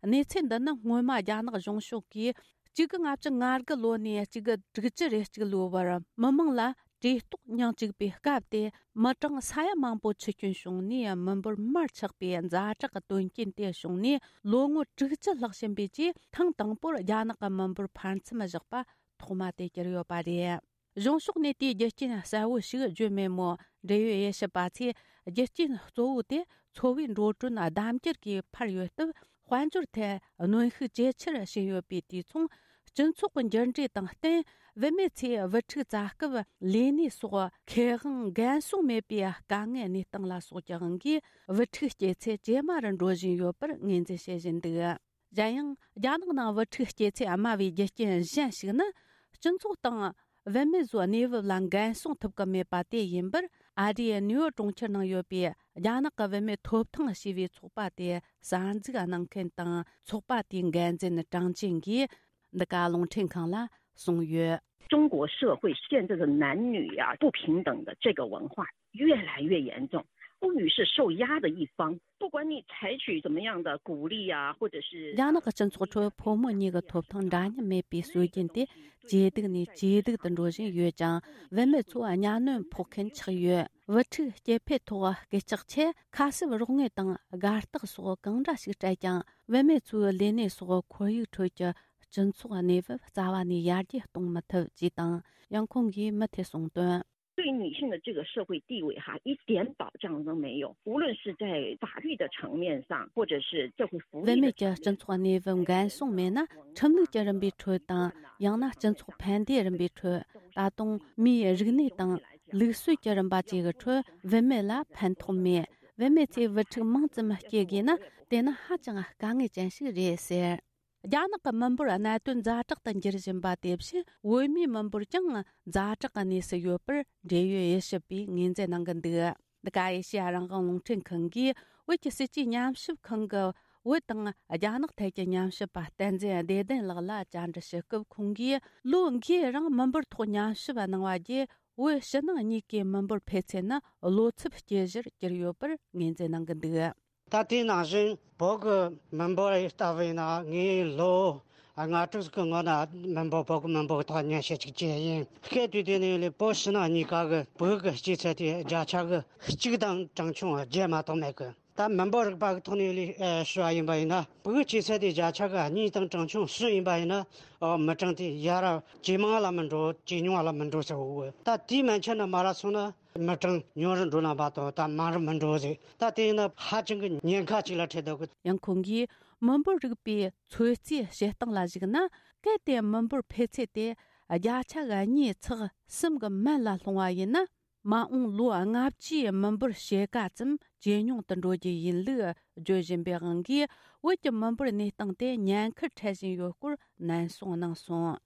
གནས་ཚུལ་འདི་ནི་སྔོན་མ་རྒྱ་ནག་གཞུང་ཕྱོགས་ཀྱིས་གཅིག་དགུ་ལྔ་བཅུ་ང་དགུ་ལོ་ནས་གཅིག་དགུ་དྲུག་ཅུ་རེ་གཅིག་ལོའི་བར་མི་མང་ལ་ བཀྲེས་ལྟོགས་མྱང་བཅུག་པའི་སྐབས་དེ། མི་གྲངས་ས་ཡ་མང་པོ་འཆི་སྐྱོན་བྱུང་ནས། མི་འབོར་མར་ཆག་པའི་ཛ་དྲག་གི་དོན་རྐྱེན་དེ་བྱུང་ནས། ལོ་ངོ་དྲུག་ཅུ་ལྷག་ཕྱིན་པའི་རྗེས། ཐེངས་དང་པོར་རྒྱ་ནག་གི་མི་འབོར་འཕར་མཚམས་བཞག་པ་ཐོག་མ་དེ་གྱུར་ཡོད་པ་རེད། གཞུང་ཕྱོགས་ནས་དེའི་རྒྱུ་རྐྱེན་གསལ་བོ་ཞིག་བརྗོད་མེད་མོད། འབྲེལ་ཡོད་དབྱེ་ཞིབ་པ་ཚོས། རྒྱུ་རྐྱེན་གཙོ་བོ་དེ་འཚོ་བའི་འགྲོ་གྲོན་ལྡབ་འགྱུར་གྱིས་འཕར་ཡོད་སྟབས། དཔལ་འབྱོར་ཐད་གནོན་ཤུགས་ཇེ་ཆེར་ཕྱིན་ཡོད་པས། དུས་མཚུངས་སྤྱི་ཚོགས་ཀྱི་འགྱུར་འགྲོས་དང་བསྟུན། བུད་མེད་ཚོས་བུ་ཕྲུག་བཙའ་སྐབས་ལས་གནས་སོགས་ཁེ་དབང་འགན་སྲུང་མེད་པའི་དཀའ་ངལ་གནས་སྟངས་ལ་སོགས་ཀྱི་དབང་གིས། བུ་ཕྲུག་སྐྱེ་ཚད་ཇེ་དམའ་རུ་འགྲོ་བཞིན་ཡོད་པར་ངོས་འཛིན་བྱེད་བཞིན་འདུག། གཞན་ཡང་། རྒྱ་ནག་ནང་བུ་ཕྲུག་སྐྱེ་ཚད་དམའ་བའི་རྒྱུ་རྐྱེན་གཞན་ཞིག་ནི། སྤྱི་ཚོགས་དང་བུད་མེད་ཚོའི་གནས་བབ་ལ་འགན་སྲུང་ཐུབ་ཀྱི་མེད་པ་དེ་ཡིན་པར། ཨ་རིའི་ནེའུ་ཡོག་གྲོང་ཁྱེར་ནང་ཡོད་པའི་རྒྱ་ནག་གི་བུད་མེད་ཐོབ་ཐང་ཞེས་པའི་ཚོགས་པ་དེ་གསར་འཛུགས་གནང་མཁན་དང་། ཚོགས་པ་དེའི་འགན་འཛིན་ཀྲང་ཅིན་གྱིས་འདི་ག་རླུང་འཕྲིན་ཁང་ལ་གསུངས་ཡོད། 中国社会现在的男女啊不平等的这个文化越来越严重，妇女是受压的一方。不管你采取怎么样的鼓励啊，或者是 རྒྱ་ནག་གི་སྤྱི་ཚོགས་ཁྲོད་ཕོ་མོ་གཉིས་ཀྱི་ཐོབ་ཐང་འདྲ་མཉམ་མེད་པའི་སྲོལ་རྒྱུན་དེ་ཇེ་སྡུག་ནས་ཇེ་སྡུག་ཏུ་འགྲོ་བཞིན་ཡོད་ཅིང་། བུད་མེད་ཚོ་གཉའ་གནོན་ཕོག་མཁན་ཆགས་ཡོད། བུ་ཕྲུག་སྐྱེ་འཕེལ་ཐོག་སྐད་ཆག་ཆེད། ཁ་གསབ་རོགས་དངུལ་དང་དགའ་རྟགས་སོགས་གང་འདྲ་ཞིག་སྤྲད་ཀྱང་། བུད་མེད་ཚོའི་ལས་གནས་སོགས་ཁོར་ཡུག་ཁྲོད་ཀྱི་སྤྱི་ཚོགས་གནས་བབ་རྩ་བ་ནས་ཡར་རྒྱས་གཏོང་མི་ཐུབ་ཅེས་དང་། ཡང་ཁོང་གིས་མུ་མཐུད་གསུངས་དོན། 对女性的这个社会地位哈，一点保障都没有。无论是在法律的层面上，或者是社会福利的层面， བུད་མེད་ཀྱི་སྤྱི་ཚོགས་གནས་བབ་འགན་སྲུང་མེད་ན། ཁྲིམས་ལུགས་ཀྱི་རིམ་པའི་ཁྲོད་དང་། ཡང་ན་སྤྱི་ཚོགས་ཕན་བདེའི་རིམ་པའི་ཁྲོད། ད་དུང་མིའི་རིག་གནས་དང་ལུགས་སྲོལ་གྱི་རིམ་པ་བཅས་ཀྱི་ཁྲོད་བུད་མེད་ལ་ཕན་ཐོགས་མེད། བུད་མེད་ཚོས་བུ་ཕྲུག་མང་ཙམ་སྐྱེ་དགོས་ན། དེ་ནི་ཧ་ཅང་དཀའ་ངལ་ཅན་ཞིག་རེད་ཟེར། རྒྱ་ནག་གི་མི་འབོར་གནད་དོན་ཛ་དྲག་ཏུ་འགྱུར་བཞིན་པ་དེ་བཞིན། བུད་མེད་མི་འབོར་ཀྱང་ཛ་དྲག་གི་གནས་སུ་ཡོད་པར་འབྲེལ་ཡོད་དབྱེ་ཞིབ་པས་ངོས་འཛིན་གནང་གི་འདུག། འདི་ག་ཨེ་ཤེ་ཡ་རང་དབང་རླུང་འཕྲིན་ཁང་གིས་བོད་ཀྱི་སྲིད་ཇུས་ཉམས་ཞིབ་ཁང་གི་བོད་དང་རྒྱ་ནག་ཐད་ཀྱི་ཉམས་ཞིབ་པ་བསྟན་འཛིན་བདེ་ལྡན་ལགས་ལ་བཅར་འདྲི་ཞུ་སྐབས། ཁོང་གིས་ལོ་འགའི་རིང་མི་འབོར་ཐོག་ཉམས་ཞིབ་གནང་བ་བརྒྱུད། བོད་ཕྱི་ནང་གཉིས་ཀའི་མི་འབོར་འཕེལ་ཚད་ནི་བློ་འཚབ་སྐྱེ་གཞིར་གྱུར་ཡོད་པར་ངོས་འཛིན་གནང་གི་འདུག། ད་དེ་ནང་བཞིན་བོད་ཀྱི་མི་འབོར་ལྟ་བུ་ཡིན་ན། ངས་ལོ་ལྔ་དྲུག་གི་སྔོན་ན་མི་འབོར། བོད་ཀྱི་མི་འབོར་ཐོག་ཉམས་ཞིབ་ཅིག་བྱས་ཡིན། སྐད་དུས་དེ་ནས་ལས་བོད་ཕྱི་ནང་གཉིས་ཀ་གི་བོད་ཀྱི་སྐྱེ་ཚད་དེ་བརྒྱ་ཆ་གི་གཅིག་དང་གྲངས་ཆུང་བརྒྱད་མ་གཏོགས་མེད་གི། ད་མི་འབོར་རིག་པ་གི་ཐོག་ནས་ལས་ཞུ་བ་ཡིན་པ་ཡིན་ན། བོད་ཀྱི་སྐྱེ་ཚད་དེ་བརྒྱ་ཆ་གི་གཉིས་དང་གྲངས་ཆུང་གསུམ་ཡིན་པ་ཡིན་ན། ཨོ། མི་གྲངས་དེ་ཡར་ཇེ་མང་ལ་མི་འགྲོ། ཇེ་ཉུང་ལ་མི་འགྲོ་ཟེར་བོ། ད་དེའི་མན་ཆད་ནས་མར་སོང་ན། མི་གྲངས་ཉུང་རུ་འགྲོ་ལ་མ་གཏོགས་ད་མང་རུ་མི་འགྲོ་ཟེར། ད་དེ་ཡིན་ན་ཧ་ཅང་གི་ཉེན་ཁ་ཅིག་ལ་འཕྲད་འདུག་གི། ཡང་ཁོང་གིས་མི་འབོར་རིག་པའི་ཚོད་རྩིས་བྱེད་སྟངས་ལ་གཞིགས་ན། གལ་ཏེ་མི་འབོར་འཕེལ་ཚད་དེ་བརྒྱ་ཆ་གཉིས་ཚེག་གསུམ་གྱི་མན་ལ་ལྷུང་བ་ཡིན་ན། མ་འོངས་ལོ་ལྔ་བཅུའི་མི་འབོར་ཕྱེད་ཀ་ཙམ་ཇེ་ཉུང་དུ་འགྲོ་རྒྱུ་ཡིན་ལུགས་བརྗོད་བཞིན་པའི་དབང་གིས། བོད་ཀྱི་མི་འབོར་གནས་སྟངས་དེ་ཉེན་ཁར་འཕྲད་བཞིན་ཡོད་སྐོར་ནན་གསུངས་གནང་སོང་།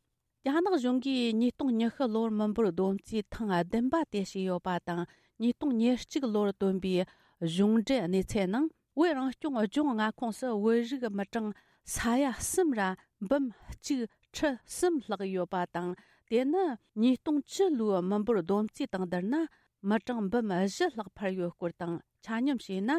རྒྱ་ནག་གཞུང་གིས་ཉིས་སྟོང་ཉི་ཤུ་ལོར་མི་འབོར་བསྡོམས་རྩིས་ཐེངས་བདུན་པ་དེ་བྱས་ཡོད་པ་དང་། ཉིས་སྟོང་ཉེར་གཅིག་ལོར་བཏོན་པའི་གཞུང་འབྲེལ་གནས་ཚད་ནང་། བོད་རང་སྐྱོང་ལྗོངས་མངའ་ཁོངས་སུ་བོད་རིགས་མི་གྲངས་ས་ཡ་གསུམ་ར་འབུམ་གཅིག་ཁྲི་གསུམ་ལྷག་ཡོད་པ་དང་། དེ་ནི་ཉིས་སྟོང་བཅུ་ལོའི་མི་འབོར་བསྡོམས་རྩིས་དང་བསྡུར་ན། མི་གྲངས་འབུམ་བཞི་ལྷག་འཕར་ཡོད་སྐོར་དང་། ཆ་སྙོམས་བྱས་ན།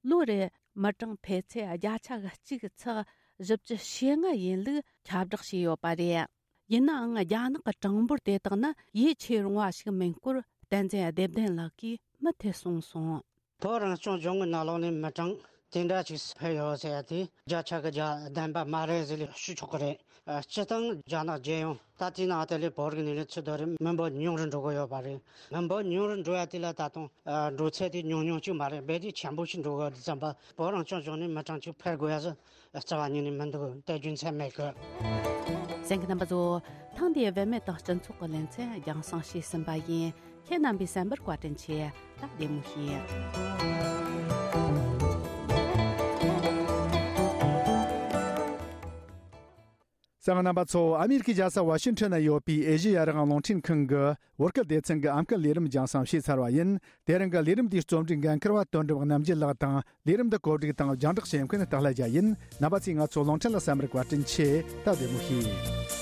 ལོ་རེར་མི་གྲངས་འཕེལ་ཚད་བརྒྱ་ཆ་གཅིག་ཚེག་བཞི་བཅུ་ཞེ་ལྔ་ཡིན་ལུགས་ཁྱབ་བསྒྲགས་བྱས་ཡོད་པ་རེད། ཡིན་ནའང་། རྒྱ་ནག་གི་གྲངས་འབོར་དེ་དག་ནི་ཡིད་ཆེས་རུང་བ་ཞིག་མིན་སྐོར་བསྟན་འཛིན་བདེ་ལྡན་ལགས་ཀྱིས་མུ་མཐུད་གསུངས་སོང་། བོད་རང་སྐྱོང་ལྗོངས་ཀྱི་ནང་ལོགས་ནས་མི་གྲངས་དེ་འདྲ་ཅིག་འཕེལ་ཡོད་ཟེར་ཡ་དེ་བརྒྱ་ཆ་གི་བརྒྱ་ལྡན་པ་མ་རེད་ཟེར་ལས་ཞུ་ཆོག་གི་རེད། སྤྱིར་བཏང་རྒྱ་ནག་རྒྱལ་ཡོངས་ད་ལྟའི་ནང་དེ་ལས་བོད་རིགས་ནས་ལས་ཚུར་དོ་རེད། མི་འབོར་ཉུང་རུ་འགྲོ་གི་ཡོད་པ་རེད། མི་འབོར་ཉུང་རུ་འགྲོ་ཡ་དེ་ལ་ད་དུང་འགྲོ་ཚད་དེ་ཉུང་ཉུང་ཅིག་མ་རེད། རྦད་དེ་ཆེན་པོ་ཞིག་འགྲོ་གི་ཙམ་པ། བོད་རང་སྐྱོང་ལྗོངས་ནས་མི་གྲངས་ཅིག་འཕེལ་དགོས་ཡ་ཟེར་རྩ་བ་ཉིད་ནས་མི་འདུག། དེ་རྒྱུ་མཚན་མེད་གི། གསན་མཁན་རྣམ་པ་ཚོ། ཐེངས་འདིའི་བུད་མེད་དང་སྤྱི་ཚོགས་ཀྱི་ལེ་ཚན་རྒྱང་སྲིང་བྱས་ཟིན་པ་ཡིན། ཁྱེད་རྣམ་པས་གསན་པར་བཀའ་དྲིན་ཆེ། ད་བདེ་མོ་བྱོས། གསན་མཁན་རྣམ་པ་ཚོ། ཨ་མི་རི་ཀའི་རྒྱལ་ས་ཝ་ཤིང་ཊོན་ན་ཡོད་པའི་ཨེ་ཤེ་ཡ་རང་དབང་རླུང་འཕྲིན་ཁང་གི་བོད་སྐད་སྡེ་ཚན་གྱི་ཨམ་སྐད་ལས་རིམ་རྒྱང་སྲིང་བྱས་ཚར་བ་ཡིན། དེ་རིང་གི་ལས་རིམ་འདིའི་རྩོམ་སྒྲིག་འགན་འཁུར་བ་དོན་གྲུབ་རྣམ་རྒྱལ་ལགས་དང་། ལས་རིམ་འདི་གོ་སྒྲིག་དང་རྒྱང་བསྒྲགས་བྱེད་མཁན་སྟག་ལྷ་རྒྱལ་ཡིན། རྣམ་པ་ཚོས་ང་ཚོ་རླུང་འཕྲིན་ལ་གསན་པར་བཀའ་དྲིན་ཆེ། ད་བདེ་མོ་བྱོས།